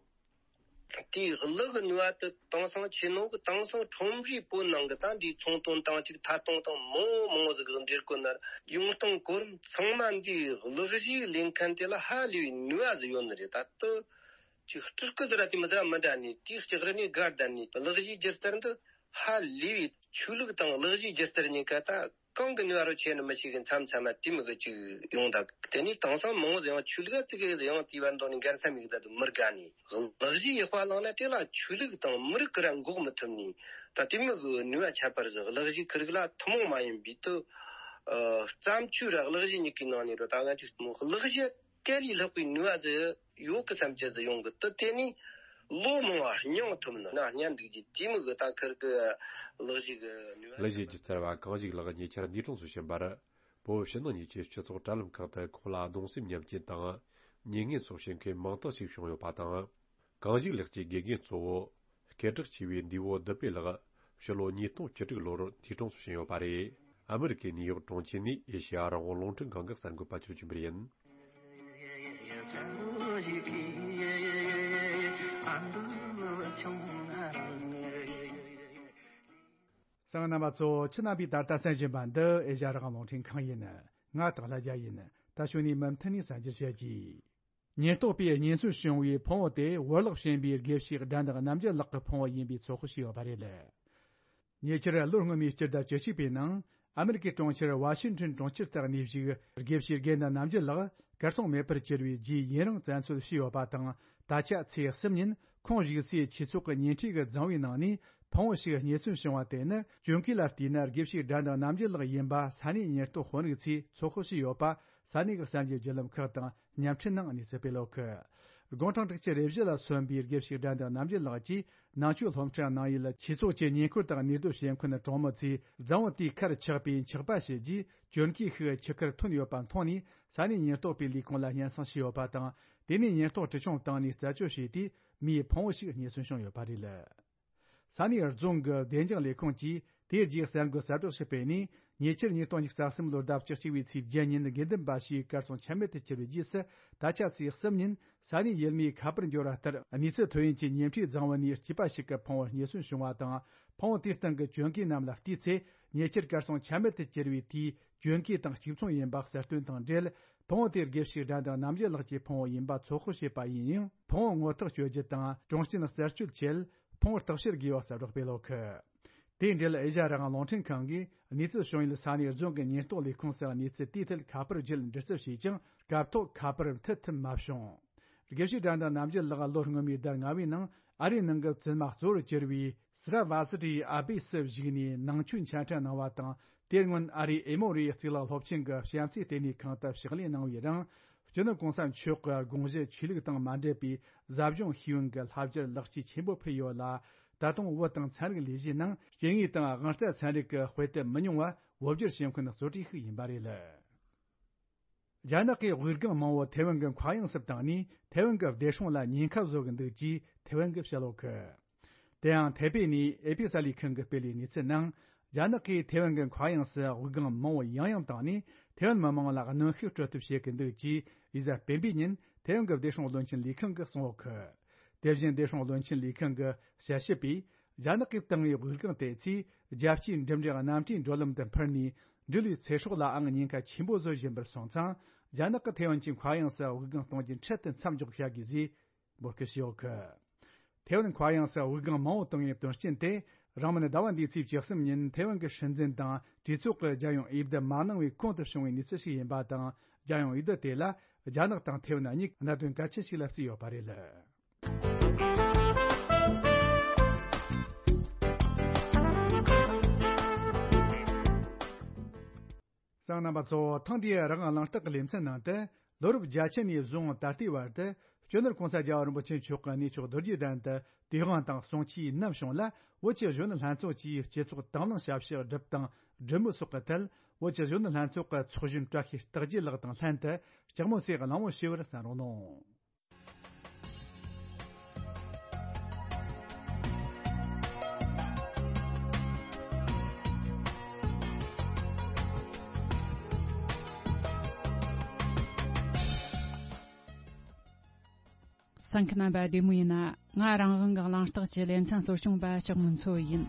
དེའི་གླུ་གི་ནུས་པ་དེ་དེང་སང་ཆེ་ནོ་གི་དེང་སང་ཁྲོམ་རའི་བོད་ནང་གི་ད་འདིའི་ཚོང་དོན་དང་ཅིག་ཐད་གཏོང་དང་མང་བོ་མང་བོ་ཟིག་གི་འབྲེལ་བཀོད་ནར་ཡོང་སྟངས་གོ་རིམ་ཚང་མ་འདིའི་གླུ་གཞས་ལེན་མཁན་དེ་ལ་ཧ་ལས་པའི་ནུས་པ་ཟིག་ཡོད་ནི་རེད། ད་དུ་ཅིག་སྤྲུལ་སྐུ་ཟེར་ར་དེ་མི་ཟེར་ར་མི་འདྲ་ནི་དེའི་ལྕགས་རི་ནས་སྒར་བསྡད་ནི་གླུ་གཞས་སྒྱུ་རྩལ་འདི་ཧ་ལས་པའི་ཆོས་ལུགས་དང་གླུ་གཞས་སྒྱུ་རྩལ་གཉིས་ཀ་ད། གང་གི་ནུས་པ་རུ་ཆེ་ནི་མི་ཤེས་གི་མཚམས་མཚམས་མ་དེ་མི་གི་ཅིག་ཡོང་ད། དེ་ནས་དེང་སང་མང་བོ་ཡང་ཆོས་ལུགས་ཙི་གེ་ཡང་དེའི་བར་འདོགས་ནས་འགལ་ས་མི་གི་ད་དུ་མི་དགའ་ནི། གླུ་གཞས་ཡག་པ་བླངས་ན་དེ་ལ་ཆོས་ལུགས་དང་མི་རིགས་ཀྱི་ར་འགོག་མི་ཐུབ་ནི། ད་དེ་མི་གི་ནུས་པ་ཁྱད་པར་ཟིག་གླུ་གཞས་ཁུར་གི་ལ་ཐུན་མོང་མ་ཡིན་པའི་དུ་བརྩམས་ཆོས་ར་གླུ་གཞས་གཉིས་ཀའི་ནང་ནས་རུ་ད་ང་ཅིག་གླུ་གཞས། དེ་ལས་ལྷག་པའི་ནུས་པ་ཟིག་ཡོད་གི་བསམ་གྱི་ཟིག་ཡོང་གི། དེ་དེ་ནས་ལོ་མང་བ་སྙིང་ཐུབ་ན་ན་སྙམ་འདུག་རྒྱུ་དེ་མི་གི་ད་ཁུར་གི་གླུ་གཞས་གི་ནུས་པ། གླུ་གཞས་ཀྱི་རྩལ་བ་གངས་ཞིག་ལགས་ཉེ་ཆར་ནི་ཀྲོང་སུ་ཕྱིན་པར། བོད་ཕྱི་ནང་གཉིས་ཀྱི་སྤྱི་ཚོགས་དྲ་ལམ་ཁག་ཏུ་ཁོང་ལ་གདུང་སེམས་མཉམ་སྐྱེད་དང་མྱ་ངན་སོགས་བྱེད་མཁན་མང་དག་ཞིག་བྱུང་ཡོད་པ་དང་། གངས་ཞིག་ལགས་ཀྱི་དགེ་རྒན་གཙོ་བོ། སྐད་གྲགས་ཆེ་བའི་འདས་པོ་བདུད་བྷེ་ལགས་ཕྱི་ལོ་ཉིས་སྟོང་བཅུ་དྲུག་ལོར་ནི་ཀྲོང་སུ་ཕྱིན་ཡོད་པ་རེད། ཨ་མི་རི་ཀའི་ནིའུ་ཡོག་གྲོང་ཁྱེར་ནས་ཨེ་ཤེ་ཡ་རང་དབང་རླུང་འཕྲིན་ཁང་གི་གསར་འགོད་པ་ཚོས་བྱོན་པ་ཡིན། གསན་མཁན་རྣམ་པ་ཚོ། ཁྱེད་རྣམ་པས་ད་ལྟ་གསན་བཞིན་པ་འདི་ཨེ་ཤེ་ཡ་རང་དབང་རླུང་འཕྲིན་ཁང་ཡིན། ང་སྟག་ལྷ་རྒྱལ་ཡིན། ད་ཞུ་ནས་མུ་མཐུད་ནས་གསན་རྒྱུ་བྱེད་ཀྱིས། ཉེན་རྟོག་པས་རྙེད་སོན་བྱུང་བའི་ཕུང་བོ་དེ་བོར་བརླག་ཕྱིན་པའི་དགེ་བཤེས་དགྲ་འདེགས་རྣམ་རྒྱལ་ལགས་ཀྱི་ཕུང་བོ་ཡིན་པའི་ཚོད་དཔག་བྱས་ཡོད་པ་རེད། ཉེ་ཆར་ལོ་སྔོན་མའི་སྤྱི་ཟླ་བཅུ་གཅིག་པའི་ནང་ཨ་མི་རི་ཀའི་གྲོང་ཁྱེར་ཝ་ཤིང་ཊོན་གྲོང་ཁྱེར་དུ་གནས་བཞུགས་དགེ་བཤེས་དགེ་འདུན་རྣམ་རྒྱལ་ལགས་གར་སོང་མེད་པར་གྱུར་བའི་རྗེས་ཡུན་རིང་བཙན་འཚོལ་བྱས་ཡོད་པ་དང་། ད་ཆ་ཚེས་གསུམ་ཉིན་ཁོང་བཞུགས་སའི་ཆོས་ཚོགས་ཀྱི་ཉེ་འཁྲིས་ཀྱི་རྫིང་བུའི་ནང་ནས་ཕུང་བོ་ཞིག་རྙེད་སོན་བྱུང་བ་དེ་ནི་གྱོན་གོས་ལ་བལྟས་ན་དགེ་བཤེས་དགྲ་འདེགས་རྣམ་རྒྱལ་ལགས་ཡིན་པ་ས་གནས་ཉེན་རྟོག་དཔོན་རིགས་ཚོས་ཚོད་དཔག་བྱས་ཡོད་པ། ས་གནས་ཀྱི་གསར་འགྱུར་བརྒྱུད་ལམ་ཁག་དང་བརྙན་འཕྲིན་ནང་གནས་ཚུལ་སྤེལ་ཡོད་གི། དགུང་གྲངས་དྲུག་ཅུ་རེ་བཞི་ལ་སོན་པའི་དགེ་བཤེས་དགྲ་འདེགས་རྣམ་རྒྱལ་ལགས་ཀྱིས་ནང་ཆོས་སློབ་འཁྲིད་གནང་ཡུལ་ཆོས་ཚོགས་ཀྱི་ཉེ་འཁོར་དང་གནས་སྡོད་བྱེད་མཁན་གྲོང་མི་ཚོས་རྫིང་བུ་དེའི་ཁར་ཆགས་པའི་འཁྱགས་པ་བྱས་རྗེས་གྱོན་གོས་ཤིག་ཆུ་ཁར་ཐོན་ཡོད་པ་མཐོང་ནས་ས་གནས་ཉེན་རྟོག་པའི་ལས་ཁུངས་ལ་སྙན་སེང་ཞུས་ཡོད་པ་དང་། དེ་ནས་ཉེན་རྟོག་གྲི་ཆུང་བཏང་ནས་རྩད་གཅོད་བྱས་དུས་མིའི་ཕུང་བོ་ཞིག་རྙེད་སོན་བྱུང་ཡོད་པ་རེད། ས་གནས་རྫོང་གི་བདེ་འཇགས་ལས་ཁུངས་ཀྱིས་དེའི་རྗེས་གསར་འགོད་གསལ་བསྒྲགས་ཤིག་སྤེལ་ནས། ཉེ་ཆར་ཉིས་སྟོང་ཉི་ཤུ་རྩ་གསུམ་ལོར་ཟླ་བཅུ་གཅིག་པའི་ཚེས་བརྒྱད་ཉིན་དགེ་འདུན་པ་ཞིག་གར་སོང་ཆ་མེད་དུ་གྱུར་བའི་རྗེས་སུ། ད་ཆ་ཚེས་གསུམ་ཉིན་ས་གནས་ཡུལ་མིའི་ཁ་པར་འབྱོར་བ་ལྟར། གནས་ཚུལ་ཐོན་ཡུལ་གྱི་ཉེ་འཁྲིས་རྫིང་བུ་ནས་སྐྱེས་པ་ཞིག་གི་ཕུང་བོ་རྙེད་སོན་བྱུང་བ་དང་། ཕུང་བོ་དེའི་སྟེང་གི་གྱོན་གོས་རྣམས་ལ་བལྟས་ཚེ། ཉེ་ཆར་གར་སོང་ཆ་མེད་དུ་གྱུར་བའི་དེའི་གྱོན་གོས་དང་གཅིག་མཚུངས་ཡིན་པ་གསལ་སྟོན་དང་འབྲེལ། ཕུང་བོ་དེ་དགེ་བཤེས་དགྲ་འདེགས་རྣམ་རྒྱལ་ལགས་ཀྱི་ཕུང་བོ་ཡིན་པ་ཚོད་དཔག་བྱས་པ་ཡིན་ཡང་། ཕུང་བོ་ངོ་ཐག་གཅོད་རྒྱུ་དང་གྲོང་སྤྱིན་རྩད་གཅོད་ཆེད་ཕུང་བོ་བརྟག་དཔྱད་དགོས་པ་གསལ་བསྒྲགས་སྤེལ་ཡོད་གི། དེའི་འབྲེལ་ཨེ་ཤ་ཡ་རང་དབང་རླུང་འཕྲིན་ཁང་གིས་གནས་ཚུལ་བྱུང་ཡུལ་ས་གནས་རྫོང་གི་ཉེན་རྟོག་ལས་ཁུངས་སུ་གནས་ཚུལ་དེའི་ཐད་ཁ་པར་བརྒྱུད་འདྲི་རྩད་བྱས་ཀྱང་། སྐབས་ཐོག་ཁ་པར་མཐུད་ཐུབ་མ་བྱུང་། དགེ་བཤེས་དགྲ་འདེགས་རྣམ་རྒྱལ་ལགས་ལོ་སྔོན་མའི་ཟླ་ལྔ་པའི་ནང་ཨ་རིའི་ནང་གི་བཙུན་མ་གཙོ་བོར་གྱུར་བའི་སི་ར་བ་སི་ཏྲིའི་ཨ་བེ་སུ་བཞུགས་ནས་ནང་ཆོས་འཆད་ཁྲིད་གནང་བ་དང་། དེར་སྔོན་ཨ་རིའི་ཨེ་མོ་རི་ཡའི་གཙུག་ལག་སློབ་ཆེན་གྱི་བྱམས་བརྩེའི་ལྟེ་གནས་ཁང་དུ་ཕྱག་ལས་གནང་བའི་རིང་། སྤྱི་ནོར་གོང་ས་མཆོག་གི་དགོངས་གཞི་ཆོས་ལུགས་དང་མ་འབྲེལ་བའི་ཟབ་སྦྱོང་ཤེས་ཡོན་གྱི་བསླབ་བྱར་ལེགས་སྐྱེས་ཆེན་པོ་ཕུལ་ཡོད་ལ། ད་དུང་བོད་དང་ཚན་རིག་ལས་གཞིའི་ནང་སྐྱེ་དངོས་དང་དབང་རྩ་ཚན་རིག་གི་དཔེ་དེབ་མི་ཉུང་བ་བོད་བསྒྱུར་བྱེད་མཁན་གཙོ་གྲས་ཤིག་ཡིན་པ་རེད། རྒྱ་ནག་གིས་དབུགས་ལྒང་མང་བོ་ཐེ་ཝན་གྱི་མཁའ་དབྱིངས་སུ་བཏང་ནས། ཐེ་ཝན་གྱི་བདེ་སྲུང་ལ་ཉེན་ཁ་བཟོ་གི་འདུག་ཅེས་ཐེ་ཝན་གྱིས་བཤད་ཡོད་གི། དེ་ཡང་ཐེ་པེ་ནས་ཨེ་པི་གསར་ལས་ཁང་གིས་སྤེལ་བའི་གནས་ཚུལ་ནང་། རྒྱ་ནག་གིས་ཐེ་ཝན་གྱི་མཁའ་དབྱིངས་སུ་དབུགས་ལྒང་མང་བོ་ཡང་ཡང་བཏང་ནས། ཐེ་ཝན་མི་མང་ལ་གནོན་ཤུགས་སྤྲོད་ཐབས་བྱེད་ཀྱི་འདུག་ཅེས་ཡུལ་གཟའ་སྤེན་པའི་ཉིན་ཐེ་ཝན་གྱི་བདེ་སྲུང་བློན་ཆེན་ལས་ཁང་གིས་གསུངས་ཡོད་གི། དེ་བཞིན་བདེ་སྲུང་བློན་ཆེན་ལས་ཁང་གི་དཔྱད་ཞིབ་པས། རྒྱ་ནག་གིས་བཏང་བའི་དབུགས་ལྒང་དེ་ཚོས་རྒྱལ་སྤྱིའི་འགྲིམ་འགྲུལ་གནམ་གྲུའི་འགྲོ་ལམ་དུ་འཕུར་ནས། འགྲུལ་བའི་ཚེ་སྲོག་ལའང་ཉེན་ཁ་ཆེན་པོ་བཟོ་བཞིན་པར་སོང་ཙང་། རྒྱ་ནག་གིས་ཐེ་ཝན་གྱི་མཁའ་དབྱིངས་སུ་དབུགས་ལྒང་གཏོང་རྒྱུ་འཕྲལ་དུ་མཚམས་འཇོག་བྱ་དགོས་ཞེས་འབོད་སྐུལ་བྱས་ཡོད་གི། ཐེ་ཝན་མཁའ་དབྱིངས་སུ་དབུགས་ལྒང་མང་བོ་བཏང་བའི་དོན་རྐྱེན་དེ། རིང་མིན་ཟླ་བ་འདིའི་ཚེས་བཅུ་གསུམ་ཉིན་ཐེ་ཝན་གྱི་སྲིད་འཛིན་དང་གྲོས་ཚོགས་ཀྱི་རྒྱལ་ཡོངས་འོས་བསྡུ་མ་གནང་བའི་གོང་དུ་བྱུང་བའི་གནས་ཚུལ་ཞིག་ཡིན་པ་དང་། རྒྱལ་ཡོངས་འོས་བསྡུ་དེ་ལ་རྒྱ་ནག་དང་ཐེ་ཝན་གཉིས་གནད་དོན་གལ་ཆེན་ཞིག་ལ་བརྩིས་ཡོད་པ་རེད། གསན་མཁན་རྣམ་པ་ཚོ། ཐེངས་འདིའི་རང་དབང་གླེང་སྟེགས་ཀྱི་ལེ་ཚན་ནང་དུ། ལོ་རབས་བརྒྱད་ཅུ་ནས་བཟུང་ད་ལྟའི་བར་དུ་སྤྱི་ནོར་གོང་ས་རྒྱལ་བ་རིན་པོ་ཆེ་མཆོག་གི་གནས་མཆོག་རྡོ་རྗེ་གདན་དུ་དུས་དབང་དང་གསུང་ཆོས་ནམ་བྱུང་ལ། བོད་ཀྱི་གཞོན་ནུ་ལྷན་ཚོགས་ཀྱིས་སྤྱི་ཚོགས་དང་བླངས་ཞབས་ཕྱི་སྒྲུབ་དང་སྒྲུབ་མུས་སོགས་ཀྱི་ཐད། བོད་ཀྱི་གཞོན་ནུ་ལྷན་ཚོགས་ཀྱི་ཚོགས་གཞོན་བཀྲ་ཤིས་རྟགས་རྒྱས་ལགས་དང་ལྷན་དུ་སྤྱི་མོས་ཚེ་གླེང་མོལ་ཞུ་བར་གསན་རོགས་གནང་། གསན་མཁན་རྣམ་པ་བདེ་མོ་ཡིན་ན། ང་རང་དབང་གི་གླེང་སྟེགས་ཀྱི་ལེ་ཚན་གཙོ་སྐྱོང་པ་ལྕགས་མོ་མཚོ་ཡིན།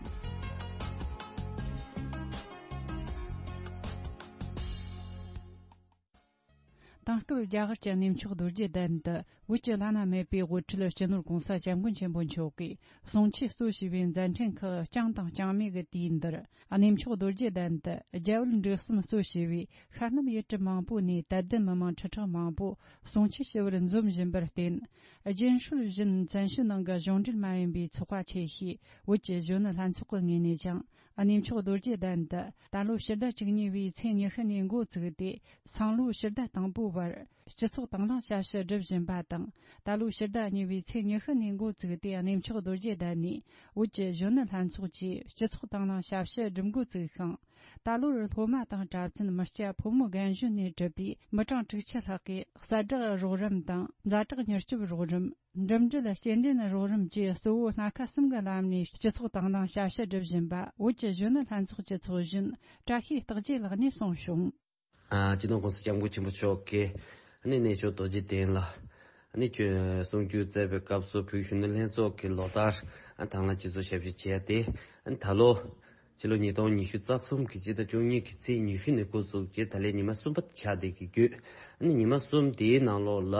དེང་སྐབས་རྒྱ་གར་གྱི་གནས་མཆོག་རྡོ་རྗེ་གདན་དུ་བོད་ཀྱི་བླ་ན་མེད་པའི་དབུ་ཁྲིད་སྤྱི་ནོར་༸གོང་ས་༸སྐྱབས་མགོན་ཆེན་པོ་མཆོག་གིས་གསུང་ཆོས་གཙོ་བྱས་པའི་མཛད་འཕྲིན་ཁག་རྐྱང་དང་རྐྱང་མེད་ཀྱི་དུས་འདིར། གནས་མཆོག་རྡོ་རྗེ་གདན་དུ་རྒྱ་བལ་འབྲུག་གསུམ་གཙོ་བྱས་པའི་ཤར་ནུབ་ཡུལ་གྲུ་མང་པོ་ནས་དད་ལྡན་མི་མང་ཁྲི་ཕྲག་མང་པོ་གསུང་ཆོས་ཞུ་བར་འཛོམས་བཞིན་པར་བརྟེན། རྒྱུན་སྲོལ་བཞིན་བཙན་བྱོལ་ནང་གི་གཞུང་འབྲེལ་མ་ཡིན་པའི་ཚོགས་པ་ཆེ་ཤོས་བོད་ཀྱི་གཞོན་ནུ་ལྷན་ཚོགས་ཀྱི་ངོས་ནས་ཀྱང་། གནས་མཆོག་རྡོ་རྗེ་གདན་དུ་ད་ལོ་ཕྱི་ཟླ་བཅུ་གཉིས་པའི་ཚེས་ཉི་ཤུ་ནས་འགོ་བཙུགས་ཏེ། སང་ལོ་ཕྱི་ཟླ་དང་པོའི་བར་སྤྱི་ཚོགས་དང་བླངས་ཞབས་ཞུ་སྒྲུབ་བཞིན་པ་དང་། ད་ལོ་ཕྱི་ཟླ་གཉིས་པའི་ཚེས་ཉི་ཤུ་ནས་འགོ་བཙུགས་ཏེ། གནས་མཆོག་རྡོ་རྗེ་གདན་ནས་བོད་ཀྱི་གཞོན་ནུ་ལྷན་ཚོགས་ཀྱིས་སྤྱི་ཚོགས་དང་བླངས་ཞབས་ཞུ་སྒྲུབ་འགོ་བཙུགས་ཤིང་། ད་ལོར་སློབ་མ་དང་གྲྭ་བཙུན་མི་སྐྱ་ཕོ་མོ་རྒན་གཞོན་ནས་གྲུབ་པའི་མི་གྲངས་དྲུག་ཅུ་ལྷག་གིས་གསལ་བསྒྲགས་རོགས་རམ་དང་ཛ་དྲག་མྱུར་སྐྱོབ་རོགས་རམ། འགྲིམ་འགྲུལ་སྐྱེལ་འདྲེན་རོགས་རམ་བཅས་གཙོ་བོ་སྣ་ཁ་གསུམ་གྱི་ལམ་ནས་སྤྱི་ཚོགས་དང་བླངས་ཞབས་ཞུ་སྒྲུབ་བཞིན་པ་བོད་ཀྱི་གཞོན་ནུ་ལྷན་ཚོགས་ཀྱི་ཚོགས་གཞོན་བཀྲ་ཤིས་རྟགས་བརྒྱད་ལགས་ནས་གསུངས་བྱུང་། ཨ། སྤྱི་ནོར་༸གོང་ས་༸སྐྱབས་མགོན་ཆེན་པོ་མཆོག་གིས་ཨ་ནི་གནས་མཆོག་རྡོ་རྗེ་གདན་ལ་ཨ་ནི་གསུང་ཆོས་སྩལ་བའི་སྐབས་སུ། བོད་གཞོན་ནུ་ལྷན་ཚོགས་ཀྱི་ལོ་ལྟར་ཨ་དང་བླངས་སྤྱི་ཚོགས་ཞབས་ཞུ་བྱས་ཏེ། ཨ་ནི་ད་ལོ་ཕྱི་ལོ་ཉིས་སྟོང་ཉི་ཤུ་རྩ་གསུམ་གྱི་སྤྱི་ཟླ་བཅུ་གཉིས་ཀྱི་ཚེས་ཉི་ཤུ་ནས་འགོ་བཙུགས་ཀྱིས་ད་ལན་ཉི་མ་གསུམ་པ་ཆགས་བསྡད་ཀྱི་ཡོད། ཨ་ནི་ཉི་མ་གསུམ་དེའི་ནང་ལོགས་ལ་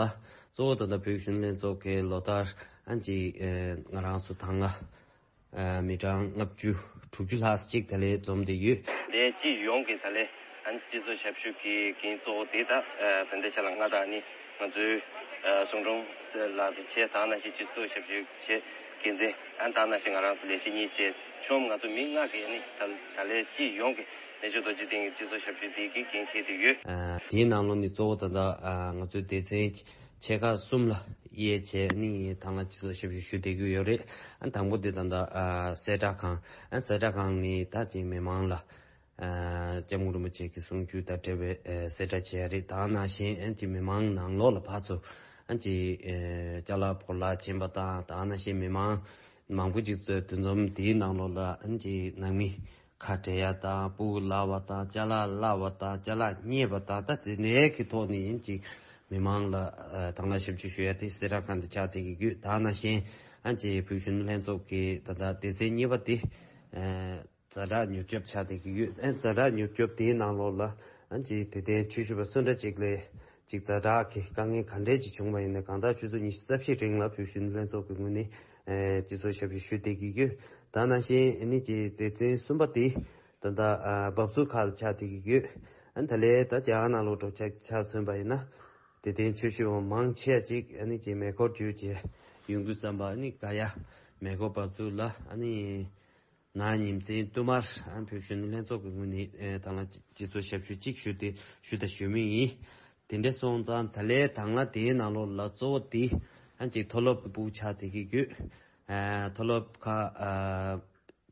གཙོ་བོ་ད་ལྟ་བོད་གཞོན་ནུ་ལྷན་ཚོགས་ཀྱི་ལོ་ལྟར་ཨ་ཅིག་ཨ་ང་རང་ཚོ་ད་སྔ་ཨ་མི་གྲངས་ལྔ་བཅུ་དྲུག་ཅུ་ལྷག་ཅིག་ད་ལན་འཛོམས་བསྡད་ཡོད། ལས་སྤྱི་ཡོངས་ཀྱི་ད་ལན་ཨ་ནི་སྤྱི་ཚོགས་ཞབས་ཞུ་གི་འགན་གཙོ་བོ་དེ་ད་ཨ་བན་དེ་ཆ་ལ་ང་དང་ནི་ང་ཚོའི་ཨ་གསུང་སྒྲོན་ལགས་དང་བཅས། ད་ནང་བཞིན་སྤྱི་ཚོགས་ཞབས་ཞུ་བྱེད་འགན་འཛིན། ཨ་ད་ནང་བཞིན་ང་རང་ཚོ་ལས་བྱེད་གཉིས་བཅས་ཆོམ་ང་ཚོ་མི་ལྔ་གིས་ནི་ད་ད་ལན་སྤྱི་ཡོངས་ཀྱི་གནས་མཆོག་རྡོ་རྗེ་གདན་གྱི་སྤྱི་ཚོགས་ཞབས་ཞུ་དེ་གི་འགན་འཁྱེར་ཏེ་ཡོད། ཨ་དེའི་ནང་ལོགས་ནས་གཙོ་བོ་ད་ལྟ་ཨ་ང་ཚོའི་སྡེ་ཚན་ཆེ་ཁག་གསུམ་ལ་དབྱེ་བྱས་ནི་དང་བླངས་སྤྱི་ཚོགས་ཞབས་ཞུ་ཞུ་བསྡད་ཀྱི་ཡོད་རེད། ཨ་དང་པོ་དེ་ད་ལྟ་ཨ་གསལ་བསྒྲགས་ཁང་། ཨ་གསལ་བསྒྲགས་ཁང་ནི་ད་ཅིག་མི་མང་ལ་ཨ་སྐྱབས་མགོན་རིན་པོ་ཆེ་གི་གསུང་ཆོས་དང་འབྲེལ་བའི་ཨ་གསལ་བསྒྲགས་བྱས་རེད། ད་ནང་བཞིན་ཨ་ཅིག་མི་མང་ནང་ལོགས་ལ་ཕར་ཚུར་ཨ་ཅིག་ཨ་ཅ་ལག་ཕོ་ལགས་ཕྱིན་པ་དང་། ད་ནང་བཞིན་མི་མང་མང་པོ་ཅིག་འདུ་འཛོམས་དེའི་ནང་ལོགས་ལ་ཨ་ཅིག་ནང་མི་ཁ་བྲལ་ཡ་དང་། སྤུ་གུ་བརླག་པ་དང་། ཅ་ལག་བརླག་པ་དང་། ཅ་ལག་རྙེད་པ་དང་། ད་དེ་འདྲའི་གི་ཐོག་ནས་ཨ་ཅིག་མི་མང་ལ་ཨ་དང་བླངས་ཞབས་ཞུ་ཞུ་ཡ་དེ་གསལ་བསྒྲགས་ཁང་དུ་ཆགས་བསྡད་ཀྱི་ཡོད། ད་ནང་བཞིན་ཨ་ཅིག་བོད་གཞོན་ནུ་ལྷན་ཚོགས་ཀྱི་ད་ལྟ་སྡེ་ཚན་གཉིས་པ་དེ་ཨ་ཛ་དྲག་མྱུར་སྐྱོབ་ཆགས་བསྡད་ཀྱི་ཡོད། ཨ་ཛ་དྲག་མྱུར་སྐྱོབ་དེའི་ནང་ལོགས་ལ་ཨ་ཅིག་དད་ལྡན་ཆོས་ཞུ་བ་སུ་འདྲ་ཅིག་ལ་ཅིག་ཛ་དྲག་གི་དཀའ་ངལ་ག་འདྲས་ཅིག་བྱུང་བ་ཡིན་ན། གང་ལྟར་ཆུ་ཚོད་ཉི་ཤུ་རྩ་བཞིའི་རིང་ལ་བོད་གཞོན་ནུ་ལྷན་ཚོགས་ཀྱི་ངོས་ནས་ཨ་སྤྱི་ཚོགས་ཞབས་ཞུ་ཞུ་བསྡད་ཀྱི་ཡོད། ད་ནང་བཞིན་ཨ་ནི་ཅིག་སྡེ་ཚན་གསུམ་པ་དེ་ད་ལྟ་ཨ་འབབ་ཚུགས་ཁག་ལ་ཆགས་བསྡད་ཀྱི་ཡོད། ཨ་ད་ལན་ད་རྒྱ་གར་ནང་ལོགས་འགྲོ་ཆ་ཆ་མཚོན་པ་ཡིན་ན། དད་ལྡན་ཆོས་ཞུ་བ་མང་ཆེ་བ་ཅིག་ཨ་ནི་ཅིག་མེ་འཁོར་བརྒྱུད་བྱས་ཡོང་དུས་ཙམ་པ། ཨ་ནི་ག་ཡ་མེ་འཁོར་འབབ་ཚུགས་ལ་ཨ་ནི་ནག་ཉིན་མཚན་བསྟུད་མར་ཨ་བོད་གཞོན་ནུ་ལྷན་ཚོགས་ཀྱི་ངོས་ནས་ཨ་དང་བླངས་སྤྱི་ཚོགས་ཞབས་ཞུ་གཅིག་ཞུ་སྟེ་ཞུ་དང་ཞུ་མུས་ཡིན། དེ་འདྲ་སོང་ཙང་ད་ལན་དང་བླངས་དེའི་ནང་ལོགས་ལ་གཙོ་བོ་དེ་ཨ་ཅིག་མཐོ་སློབ་ཀྱི་སྤུ་གུ་ཆགས་བསྡད་ཀྱི་ཡོད། ཨ་མཐོ་སློབ་ཁག་ཨ་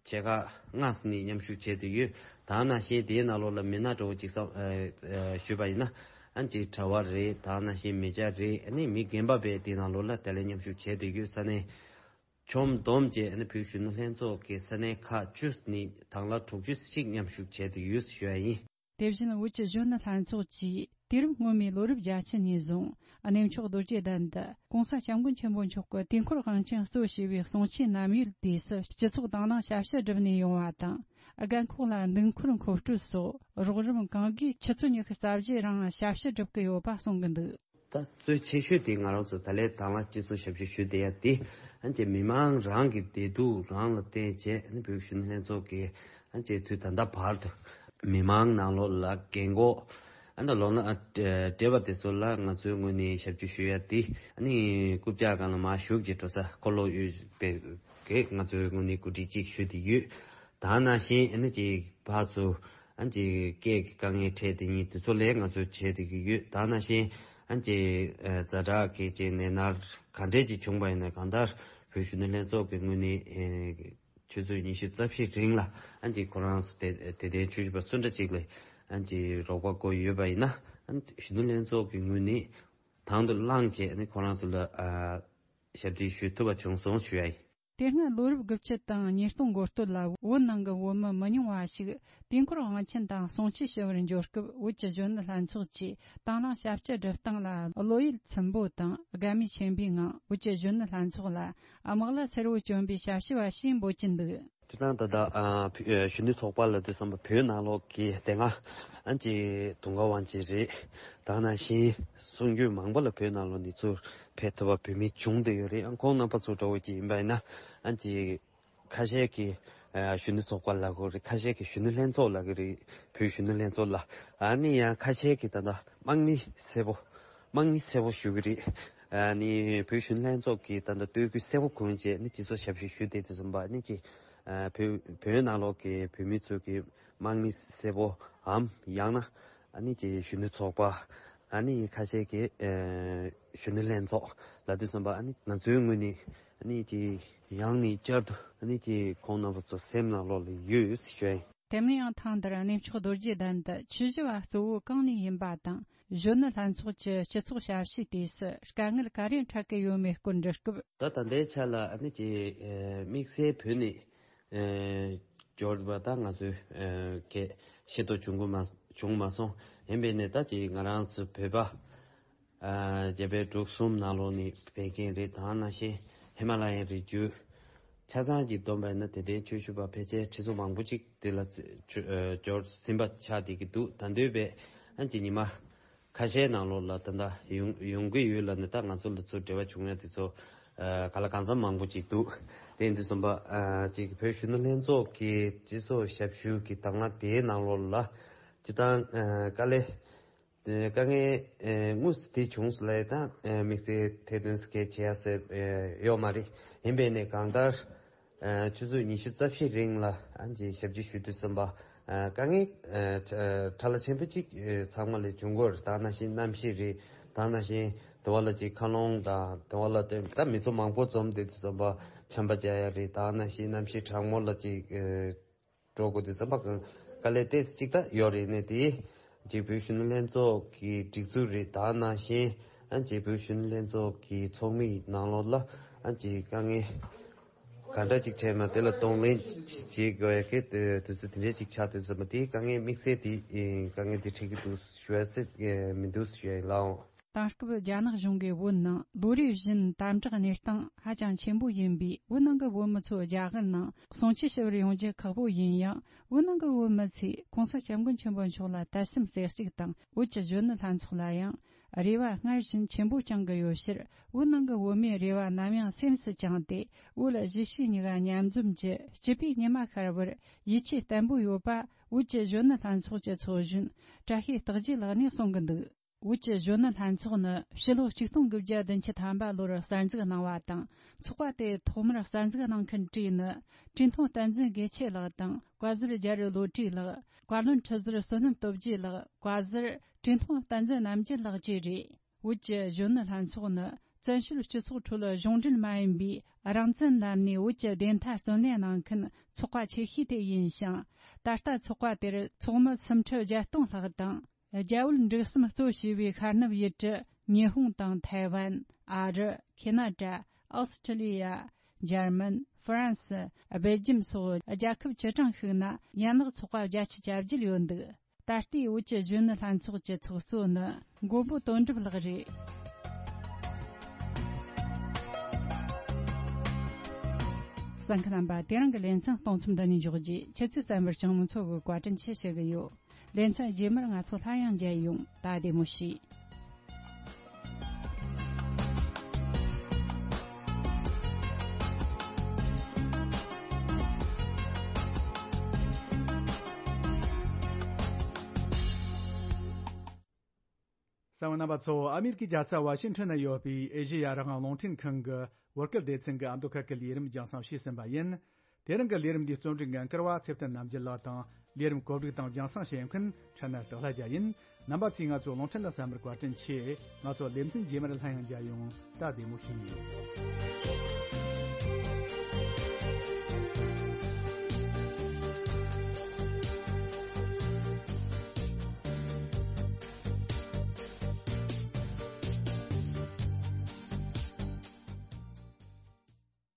ཆེ་ཁག་ལྔ་ཙམ་ནས་མཉམ་ཞུགས་བྱས་བསྡད་ཡོད། ད་ནང་བཞིན་དེའི་ནང་ལོགས་ལ་མི་སྣ་འདྲ་བོ་ཅིག་བསམ་ཨ་ཨ་ཞུས་པ་ཡིན་ན། ཨ་ཅིག་གྲྭ་བ་རེད། ད་ནང་བཞིན་མི་སྐྱ་རེད། ཨ་ནི་མི་རྒན་པ་བས་དེའི་ནང་ལོགས་ལ་དེ་ལ་མཉམ་ཞུགས་བྱས་བསྡད་ཡོད། ས་གནས་ཆོམ་བསྡོམས་བྱས་ཨ་ནི་བོད་གཞོན་ནུ་ལྷན་ཚོགས་ཀྱི་ས་གནས་ཁག་བཅུ་ནས་དང་བླངས་དྲུག་ཅུ་ཞིག་མཉམ་ཞུགས་བྱས་བསྡད་ཡོད་ཞུ་ཡ་ཡིན། དེ་བཞིན་བོད་ཀྱི་གཞོན་ནུ་ལྷན་ཚོགས་ཀྱིས་དུས་རབས་སྔོན་མའི་ལོ་རབས་བརྒྱད་ཅུ་ནས་བཟུང་གནས་མཆོག་རྡོ་རྗེ་གདན་དུ་༸གོང་ས་༸སྐྱབས་མགོན་ཆེན་པོ་མཆོག་གི་དུས་འཁོར་དབང་ཆེན་གཙོ་བྱས་པའི་གསུང་ཆོས་ནམ་ཡོད་དུས་སུ་སྤྱི་ཚོགས་དང་བླངས་ཞབས་ཞུ་སྒྲུབ་ནས་ཡོང་བ་དང་། རྒན་འཁོགས་ལ་འདུག་འཁོར་མཁོ་སྤྲོད་སོགས་རོགས་རམ་གང་དགོས་ཆུ་ཚོད་ཉི་ཤུ་རྩ་བཞིའི་རིང་ཞབས་ཞུ་སྒྲུབ་ཀྱི་ཡོད་པ་གསུང་གི་འདུག། ད་གཙོ་ཆེ་ཤོས་དེ་ང་རང་ཚོ་ད་ལན་དང་བླངས་སྤྱི་ཚོགས་ཞབས་ཞུ་ཞུ་བསྡད་ཡ་དེ། ཨ་ཅེ་མི་མང་རང་གི་བདེ་སྡུག་རང་ལ་བརྟེན་བྱས་ཨ་ནི་བོད་གཞོན་ནུ་ལྷན་ཚོགས་ཀྱིས་ཨ་ཅེ་དུས་ད་ལྟ་བར་དུ་མི་མང་ནང་ལོགས་ལ་རྒན་འཁོགས་ཨ་ནི་ལོ་ན་ཨ་བགྲེས་པ་དེ་ཚོ་ལ་ང་ཚོའི་ངོས་ནས་ཞབས་ཞུ་ཞུ་ཡ་དེ། ཨ་ནི་རྐུབ་བཀྱག་སྒང་ལ་མར་ཞུགས་ཀྱི་འགྲོ་ས་འཁོར་ལོ་ཡོད་པའི་གི་ང་ཚོའི་ངོས་ནས་གོ་སྒྲིག་ཅིག་ཞུ་བསྡད་ཡོད། ད་ནང་བཞིན་ཨ་ནི་ཅིག་ཕར་ཚུར་ཨ་ནི་ཅིག་སྐད་ཀྱི་དཀའ་ངལ་འཕྲད་དེ་ཉིད་དེ་ཚོ་ལས་ང་ཚོས་བྱས་བསྡད་ཀྱི་ཡོད། ད་ནང་བཞིན་ཨ་ནི་ཅིག་ཨ་ཛ་དྲག་གི་ཅིག་ནད་མནར་ག་འདྲས་ཅིག་བྱུང་བ་ཡིན་ན། གང་ལྟར་བོད་གཞོན་ནུ་ལྷན་ཚོགས་ཀྱི་ངོས་ནས་ཨེ་ཆུ་ཚོད་ཉི་ཤུ་རྩ་བཞིའི་རིང་ལ་ཨ་ནི་ཅིག་ཁོ་རང་ཚོ་དེ་དེ་དེ་ཆོས་ཞུ་བ་སུ་འདྲ་ཅིག་ལ་ཨ་ནི་ཅིག་རོགས་པ་དགོས་ཡོད་པ་ཡིན་ན། ཨ་ནི་གཞོན་ནུ་ལྷན་ཚོགས་ཀྱི་ངོས་ནས་དང་དུ་བླངས་བྱས་ཨ་ནི་ཁོ་རང་ཚོ་ལ་ཨ་ཞབས་འདེགས་ཞུ་ཐུབ་པ་བྱུང་སོང་ཞུ་ཡ་ཡིན། དེ་སྔ་ལོ་རབས་དགུ་བཅུ་དང་ཉིས་སྟོང་འགོ་སྟོད་ལ་བོད་ནང་གི་བོད་མི་མི་ཉུང་བ་ཞིག་དུས་འཁོར་དབང་ཆེན་དང་གསུང་ཆོས་ཞུ་བར་འབྱོར་སྐབས། བོད་ཀྱི་གཞོན་ནུ་ལྷན་ཚོགས་ཀྱིས་དང་བླངས་ཞབས་ཕྱི་སྒྲུབ་སྟངས་ལ་བློ་ཡུལ་ཚིམ་པོ་དང་དགའ་མོས་ཆེན་པོའི་ངང་། བོད་ཀྱི་གཞོན་ནུ་ལྷན་ཚོགས་ལ་དམག་ལྭ་སེར་བོ་གྱོན་པའི་ཞབས་ཞུ་བ་ཞེས་འབོད་ཀྱིན་འདུག། དེ་དང་ད་ལྟ་ཨ་བོད་ཨ་གཞོན་ནུ་ཚོགས་པ་ལབ་དུས་ཙམ་པ་བོད་ནང་ལོགས་ཀྱི་དེ་སྔ་ཨ་ཅེ་དུང་དཀར་དབང་ཆེན་རེད། ད་ནང་བཞིན་གསུང་སྒྱུར་མང་པོ་ལ་བོད་ནང་ལོགས་ནས་ཚུར་ཕེབས་ཐུབ་པ་བོད་མི་བྱུང་བསྡད་ཡོད་རེད། ཨ་ཁོང་རྣམ་པ་ཚོ་འདྲ་བོ་ཅིག་ཡིན་པ་ཡིན་ན། ཨ་ཅེ་ཁ་ཤས་ཀྱིས་ཨ་གཞོན་ནུ་ཚོགས་པ་ལབ་ཀྱི་རེད། ཁ་ཤས་ཀྱིས་གཞོན་ནུ་ལྷན་ཚོགས་ལབ་ཀྱི་རེད། བོད་གཞོན་ནུ་ལྷན་ཚོགས་ལ། ཨ་ནི་ཡང་ཁ་ཤས་ཀྱིས་ད་ལྟ་དམག་མི་སེར་པོ། དམག་མི་སེར་པོ་ཞུ་གི་རེད། ཨ་ནི་བོད་གཞོན་ནུ་ལྷན་ཚོགས་ཀྱིས་ད་ལྟ་སྟོད་ཁུལ་སེར་པོ་ཁུལ་བཅས་ནི་སྤྱི་ཚོགས་ཞབས་ཞུ་ཞུ་བསྡད་དུས་ཙམ་པ་ནི་ཅིག་ཨ་བོད་བོད་ནང་ལོགས་ཀྱི་བོད་མི་ཚོ་གི་དམག་མི་སེར་པོའམ་ཡང་ན་ཨ་ནི་ཅིག་གཞོན་ནུ་ཚོགས་པ། ཨ་ནི་ཁ་ཤས་ཀྱིས་ཨ་གཞོན་ནུ་ལྷན་ཚོགས་ལབ་དུས་ཙམ་པ། ཨ་ནི་ང་ཚོའི་ངོས་ནས་ཨ་ནི་ཅིག་ཡང་ནས་བསྐྱར་དུ་ཨ་ནི་ཅིག་ཁོང་རྣམ་པ་ཚོ་སེམས་ནང་ལོགས་ལ་ཡོད་ཞུ་ཡ་ཡིན། དེ་མིན་ཡང་ཐེངས་འདིར་གནས་མཆོག་རྡོ་རྗེ་གདན་དུ་ཆོས་ཞུ་བ་གཙོ་བོ་གང་ནས་ཡིན་པ་དང་། གཞོན་ནུ་ལྷན་ཚོགས་ཀྱི་སྤྱི་ཚོགས་ཞབས་ཞུའི་དུས་སུ་དཀའ་ངལ་ག་རེ་འཕྲད་ཀྱི་ཡོད་མེད་སྐོར་འདྲི་སྐབས། ད་ད་ལྟའི་ཆ་ལ་ཨ་ནི་ཅིག་ཨ་དམིགས་བསལ་བོད་ནས་ཨ་འབྱོར་བ་ད་ང་ཚོའི་ཨ་གི་ཤེས་རྟོགས་བྱུང་གི་མ་བྱུང་མ་སོང་། ཡིན་པས་ནས་ད་ཅིག་ང་རང་ཚོ་བོད་པ། ཨ་རྒྱ་བལ་འབྲུག་གསུམ་ནང་ལོགས་ནས་ཕེབས་མཁན་རེད། ད་ནང་བཞིན་ཧི་མ་ལ་ཡའི་རི་རྒྱུད་ཆ་ཚང་གཅིག་བསྡོམས་པ་ཡིན་ན། དེ་འདྲའི་ཆོས་ཞུ་བ་ཕལ་ཆེར་ཁྲི་ཚོ་མང་པོ་ཅིག་དེ་ལ་ཚེ་ཆོ་ཨ་འབྱོར་ཟིན་པ་ཆགས་བསྡད་ཀྱི་འདུག། ད་འདོད་པས་ཨ་ཅིག་ཉི་མ་ཁ་ཤས་ནང་ལོགས་ལ་ད་ལྟ་ཡོང་ཡོང་གི་ཡོད་ལབ་ནས། ད་ང་ཚོ་ལ་ཚུར་འབྲེལ་བ་བྱུང་ཡ་དེ་ཚོ་ཨ་ག་ལ་གང་འཚམ་མང་པོ་ཅིག་འདུག། དེ་ཡིན་དུས་ཙམ་པ་ཨ་ཅིག་བོད་གཞོན་ནུ་ལྷན་ཚོགས་ཀྱི་སྤྱི་ཚོགས་ཞབས་ཞུ་གི་དང་བླངས་དེའི་ནང་ལོགས་ལ་སྤྱི་བཏང་ཨ་དཀའ་ལས། དེ་དཀའ་ངལ་ཨེ་དངོས་སུ་དེ་བྱུང་སོང་ལབ་ཡ་དང་། ཨེ་དམིགས་བསལ་ཐེར་འདོན་སྐད་བྱེད་ཡ་ཟེར་ཨེ་ཡོད་མ་རེད། ཡིན་པས་ནས་གང་ལྟར་ཨེ་ཆུ་ཚོད་ཉི་ཤུ་རྩ་བཞིའི་རིང་ལ་ཨ་ཅེ་ཞབས་ཕྱི་ཞུ་དུས་ཙམ་པ། ཨེ་དཀའ་ངལ་ཨེ་ཕྲ་ཕྲ་ལ་ཆེན་པོ་གཅིག་ཨེ་ཚང་མ་ལ་བྱུང་གི་ཡོད་རེད། ད་ནང་བཞིན་གནམ་གཤིས་རེད། ད་ནང་བཞིན་དེ་བ་ལ་ཅིག་མཁའ་རླུང་དང་། དེ་བ་ལ་ད་མི་ཚོ་མང་པོ་འཛོམས་བསྡད་དུས་ཙམ་པ་ཆམ་པ་རྒྱག་ཡ་རེད། ད་ནང་བཞིན་གནམ་གཤིས་གྲང་མོ་ལ་ཅིག་ཨེ་འགྲོ་དགོས་དུས་ཙམ་པ་གང་དཀའ་ལས་ཏོག་ཙམ་ཅིག་ད་ཡོད་རེད། ནས་དེ་རྗེས་བོད་གཞོན་ནུ་ལྷན་ཚོགས་ཀྱི་སྒྲིག་འཛུགས་རེད། ད་ནང་བཞིན་ཨ་རྗེས་བོད་གཞོན་ནུ་ལྷན་ཚོགས་ཀྱི་ཚོགས་མིའི་ནང་ལོགས་ལ་ཨ་ཅེ་དཀའ་ངལ་ག་འདྲ་ཅིག་འཕྲད་ན་དེ་ལ་གདོང་ལེན་བྱེད་དགོས་ཡ་གི་དུས་ཚོད་དེ་འདྲ་ཅིག་ཆགས་དུས་ཙམ་པ། དེའི་དཀའ་ངལ་དམིགས་བསལ་དེ་དཀའ་ངལ་དེ་འཕྲད་ཀྱི་འདུག་ཞུ་ཡ་ཟེར་མི་འདུག་ཞུ་ཡ་ཡིན་ལགས། དེང་སྐབས་རྒྱ་ནག་གཞུང་གིས་བོད་ནང་ལོ་རེ་བཞིན་དམ་དྲག་གནས་སྟངས་ཧ་ཅང་ཆེན་པོ་ཡིན་པས། བོད་ནང་གི་བོད་མི་ཚོ་རྒྱ་གར་ནང་གསུང་ཆོས་ཞུ་བར་ཡོང་རྒྱུ་ཁག་པོ་ཡིན་ཡང་། བོད་ནང་གི་བོད་མི་ཚོས་༸གོང་ས་༸སྐྱབས་མགོན་ཆེན་པོ་མཆོག་ལ་དད་སེམས་གསལ་གཅིག་དང་། བོད་ཀྱི་གཞོན་ནུ་ལྷན་ཚོགས་ལ་ཡང་རེ་བ་སྔར་བཞིན་ཆེན་པོ་བཅངས་ཀྱི་ཡོད་ཕྱིར། བོད་ནང་གི་བོད་མིའི་རེ་བ་ནམ་ཡང་སེམས་སུ་བཅངས་ཏེ། བོད་གཞིས་བྱེས་གཉིས་ཀ་མཉམ་འཛོམས་ཀྱི་སྐྱིད་པའི་ཉི་མ་ཤར་བར་ཡིད་ཆེས་བརྟན་པོ་ཡོད་པ། བོད་ཀྱི་གཞོན་ནུ་ལྷན་ཚོགས་ཀྱི་ཚོགས་གཞོན་བཀྲ་ཤིས་རྟགས་བརྒྱད་ལགས་ནས་གསུང་གི་འདུག། བོད་ཀྱི་གཞོན་ནུ་ལྷན་ཚོགས་ནི་ཕྱི་ལོ་ཆིག་སྟོང་དགུ་བརྒྱ་བདུན་ཅུ་ཐམ་པ་ལོར་གསར་འཛུགས་གནང་བ་དང་། ཚོགས་པ་དེ་ཐོག་མར་གསར་འཛུགས་གནང་མཁན་གྲས་ནི། བཀྲས་མཐོང་བསྟན་འཛིན་དགེ་ཆེ་ལགས་དང་། བཀའ་ཟུར་རྒྱ་རི་བློ་གྲོས་ལགས། བཀའ་བློན་ཁྲི་ཟུར་བསོད་ནམས་སྟོབས་རྒྱས་ལགས། བཀའ་ཟུར་བཀྲས་མཐོང་བསྟན་འཛིན་རྣམ་རྒྱལ་ལགས་བཅས་རེད། བོད་ཀྱི་གཞོན་ནུ་ལྷན་ཚོགས་ནི་བཙན་བྱོལ་སྤྱི་ཚོགས་ཁྲོད་གཞུང་འབྲེལ་མ་ཡིན་པའི་རང་བཙན་ལམ་ནས་བོད་ཀྱི་བདེན་མཐའ་བརྩོན་ལེན་གནང་མཁན་ཚོགས་པ་ཆེ་ཤོས་དེ་ཡིན་ཞིང་། ད་ལྟ་ཚོགས་པ་དེར་ཚོགས་མི་སུམ་ཁྲི་བརྒྱད་སྟོང་ལྷག་དང་། རྒྱ་བོད་འབྲུག་གསུམ་གཙོ་བྱས་པའི་ཤར་ནུབ་ཡུལ་གྲུ་ཉི་ཧོང་དང་ཐའེ་ཝན། ཨ་རི། ཁེ་ན་ཌ། ཨོ་སི་ཁྲི་ལི་ཡ། འཇར་མན། ཧྥ་རན་སི། སྦེལ་ཇམ་སོགས་རྒྱལ་ཁབ་བཅུ་གྲངས་ཤིག་ན་ཡན་ལག་ཚོགས་པ་བརྒྱད་ཅུ་གྱ་བརྒྱད་ཡོད་འདུག། ད་ལྟའི་བོད་ཀྱི་གཞོན་ནུ་ལྷན་ཚོགས་ཀྱི་ཚོགས་གཙོ་ནི་མགོན་པོ་དོན་གྲུབ་ལགས་རེད། གསན་མཁན་རྣམ་པ། དེ་རིང་གི་ལེ་ཚན་གཏོང་མཚམས་འདི་ནས་འཇོག་རྗེས། ཁྱེད་ཚོས་གསན་པར་སྤྱང་མོ་མཚོ་གིས་བཀའ་དྲིན་ཆེ་ཞུ་གི་ཡོད། ལེ་ཚན་རྗེས་མར་ང་ཚོ་སླར་ཡང་མཇལ་ཡོང་། ད་བདེ་མོ་བྱོས། གསན་པ་རྣམ་པ་ཚོ། ཨ་མེ་རི་ཀའི་རྒྱལ་ས་ཝ་ཤིང་ཊོན་ན་ཡོད་པའི་ཨེ་ཤེ་ཡ་རང་དབང་རླུང་འཕྲིན་ཁང་གི་བོད་སྐད་སྡེ་ཚན་གྱི་ཨ་མདོ་ཁ་སྐད་ལས་རིམ་རྒྱང་སྲིང་བྱས་ཟིན་པ་ཡིན། དེ་རིང་གི་ལས་རིམ་འདིའི་རྩོམ་སྒྲིག་འགན་འཁུར་བ་ཚེ་བརྟན་རྣམ་རྒྱལ་ལགས་དང་། ལས་རིམ་གོ་སྒྲིག་དང་རྒྱང་སྲིང་བྱེད་མཁན་ཕྲན་ན་སྟག་ལྷ་རྒྱལ་ཡིན། རྣམ་པ་ཚོས་ང་ཚོ་རླུང་འཕྲིན་ལ་གསན་པར་བཀའ་དྲིན་ཆེ། ང་ཚོ་ལེ་ཚན་རྗེས་མར་སླར་ཡང་མཇལ་ཡོང་། ད་བདེ་མོ་བྱོས།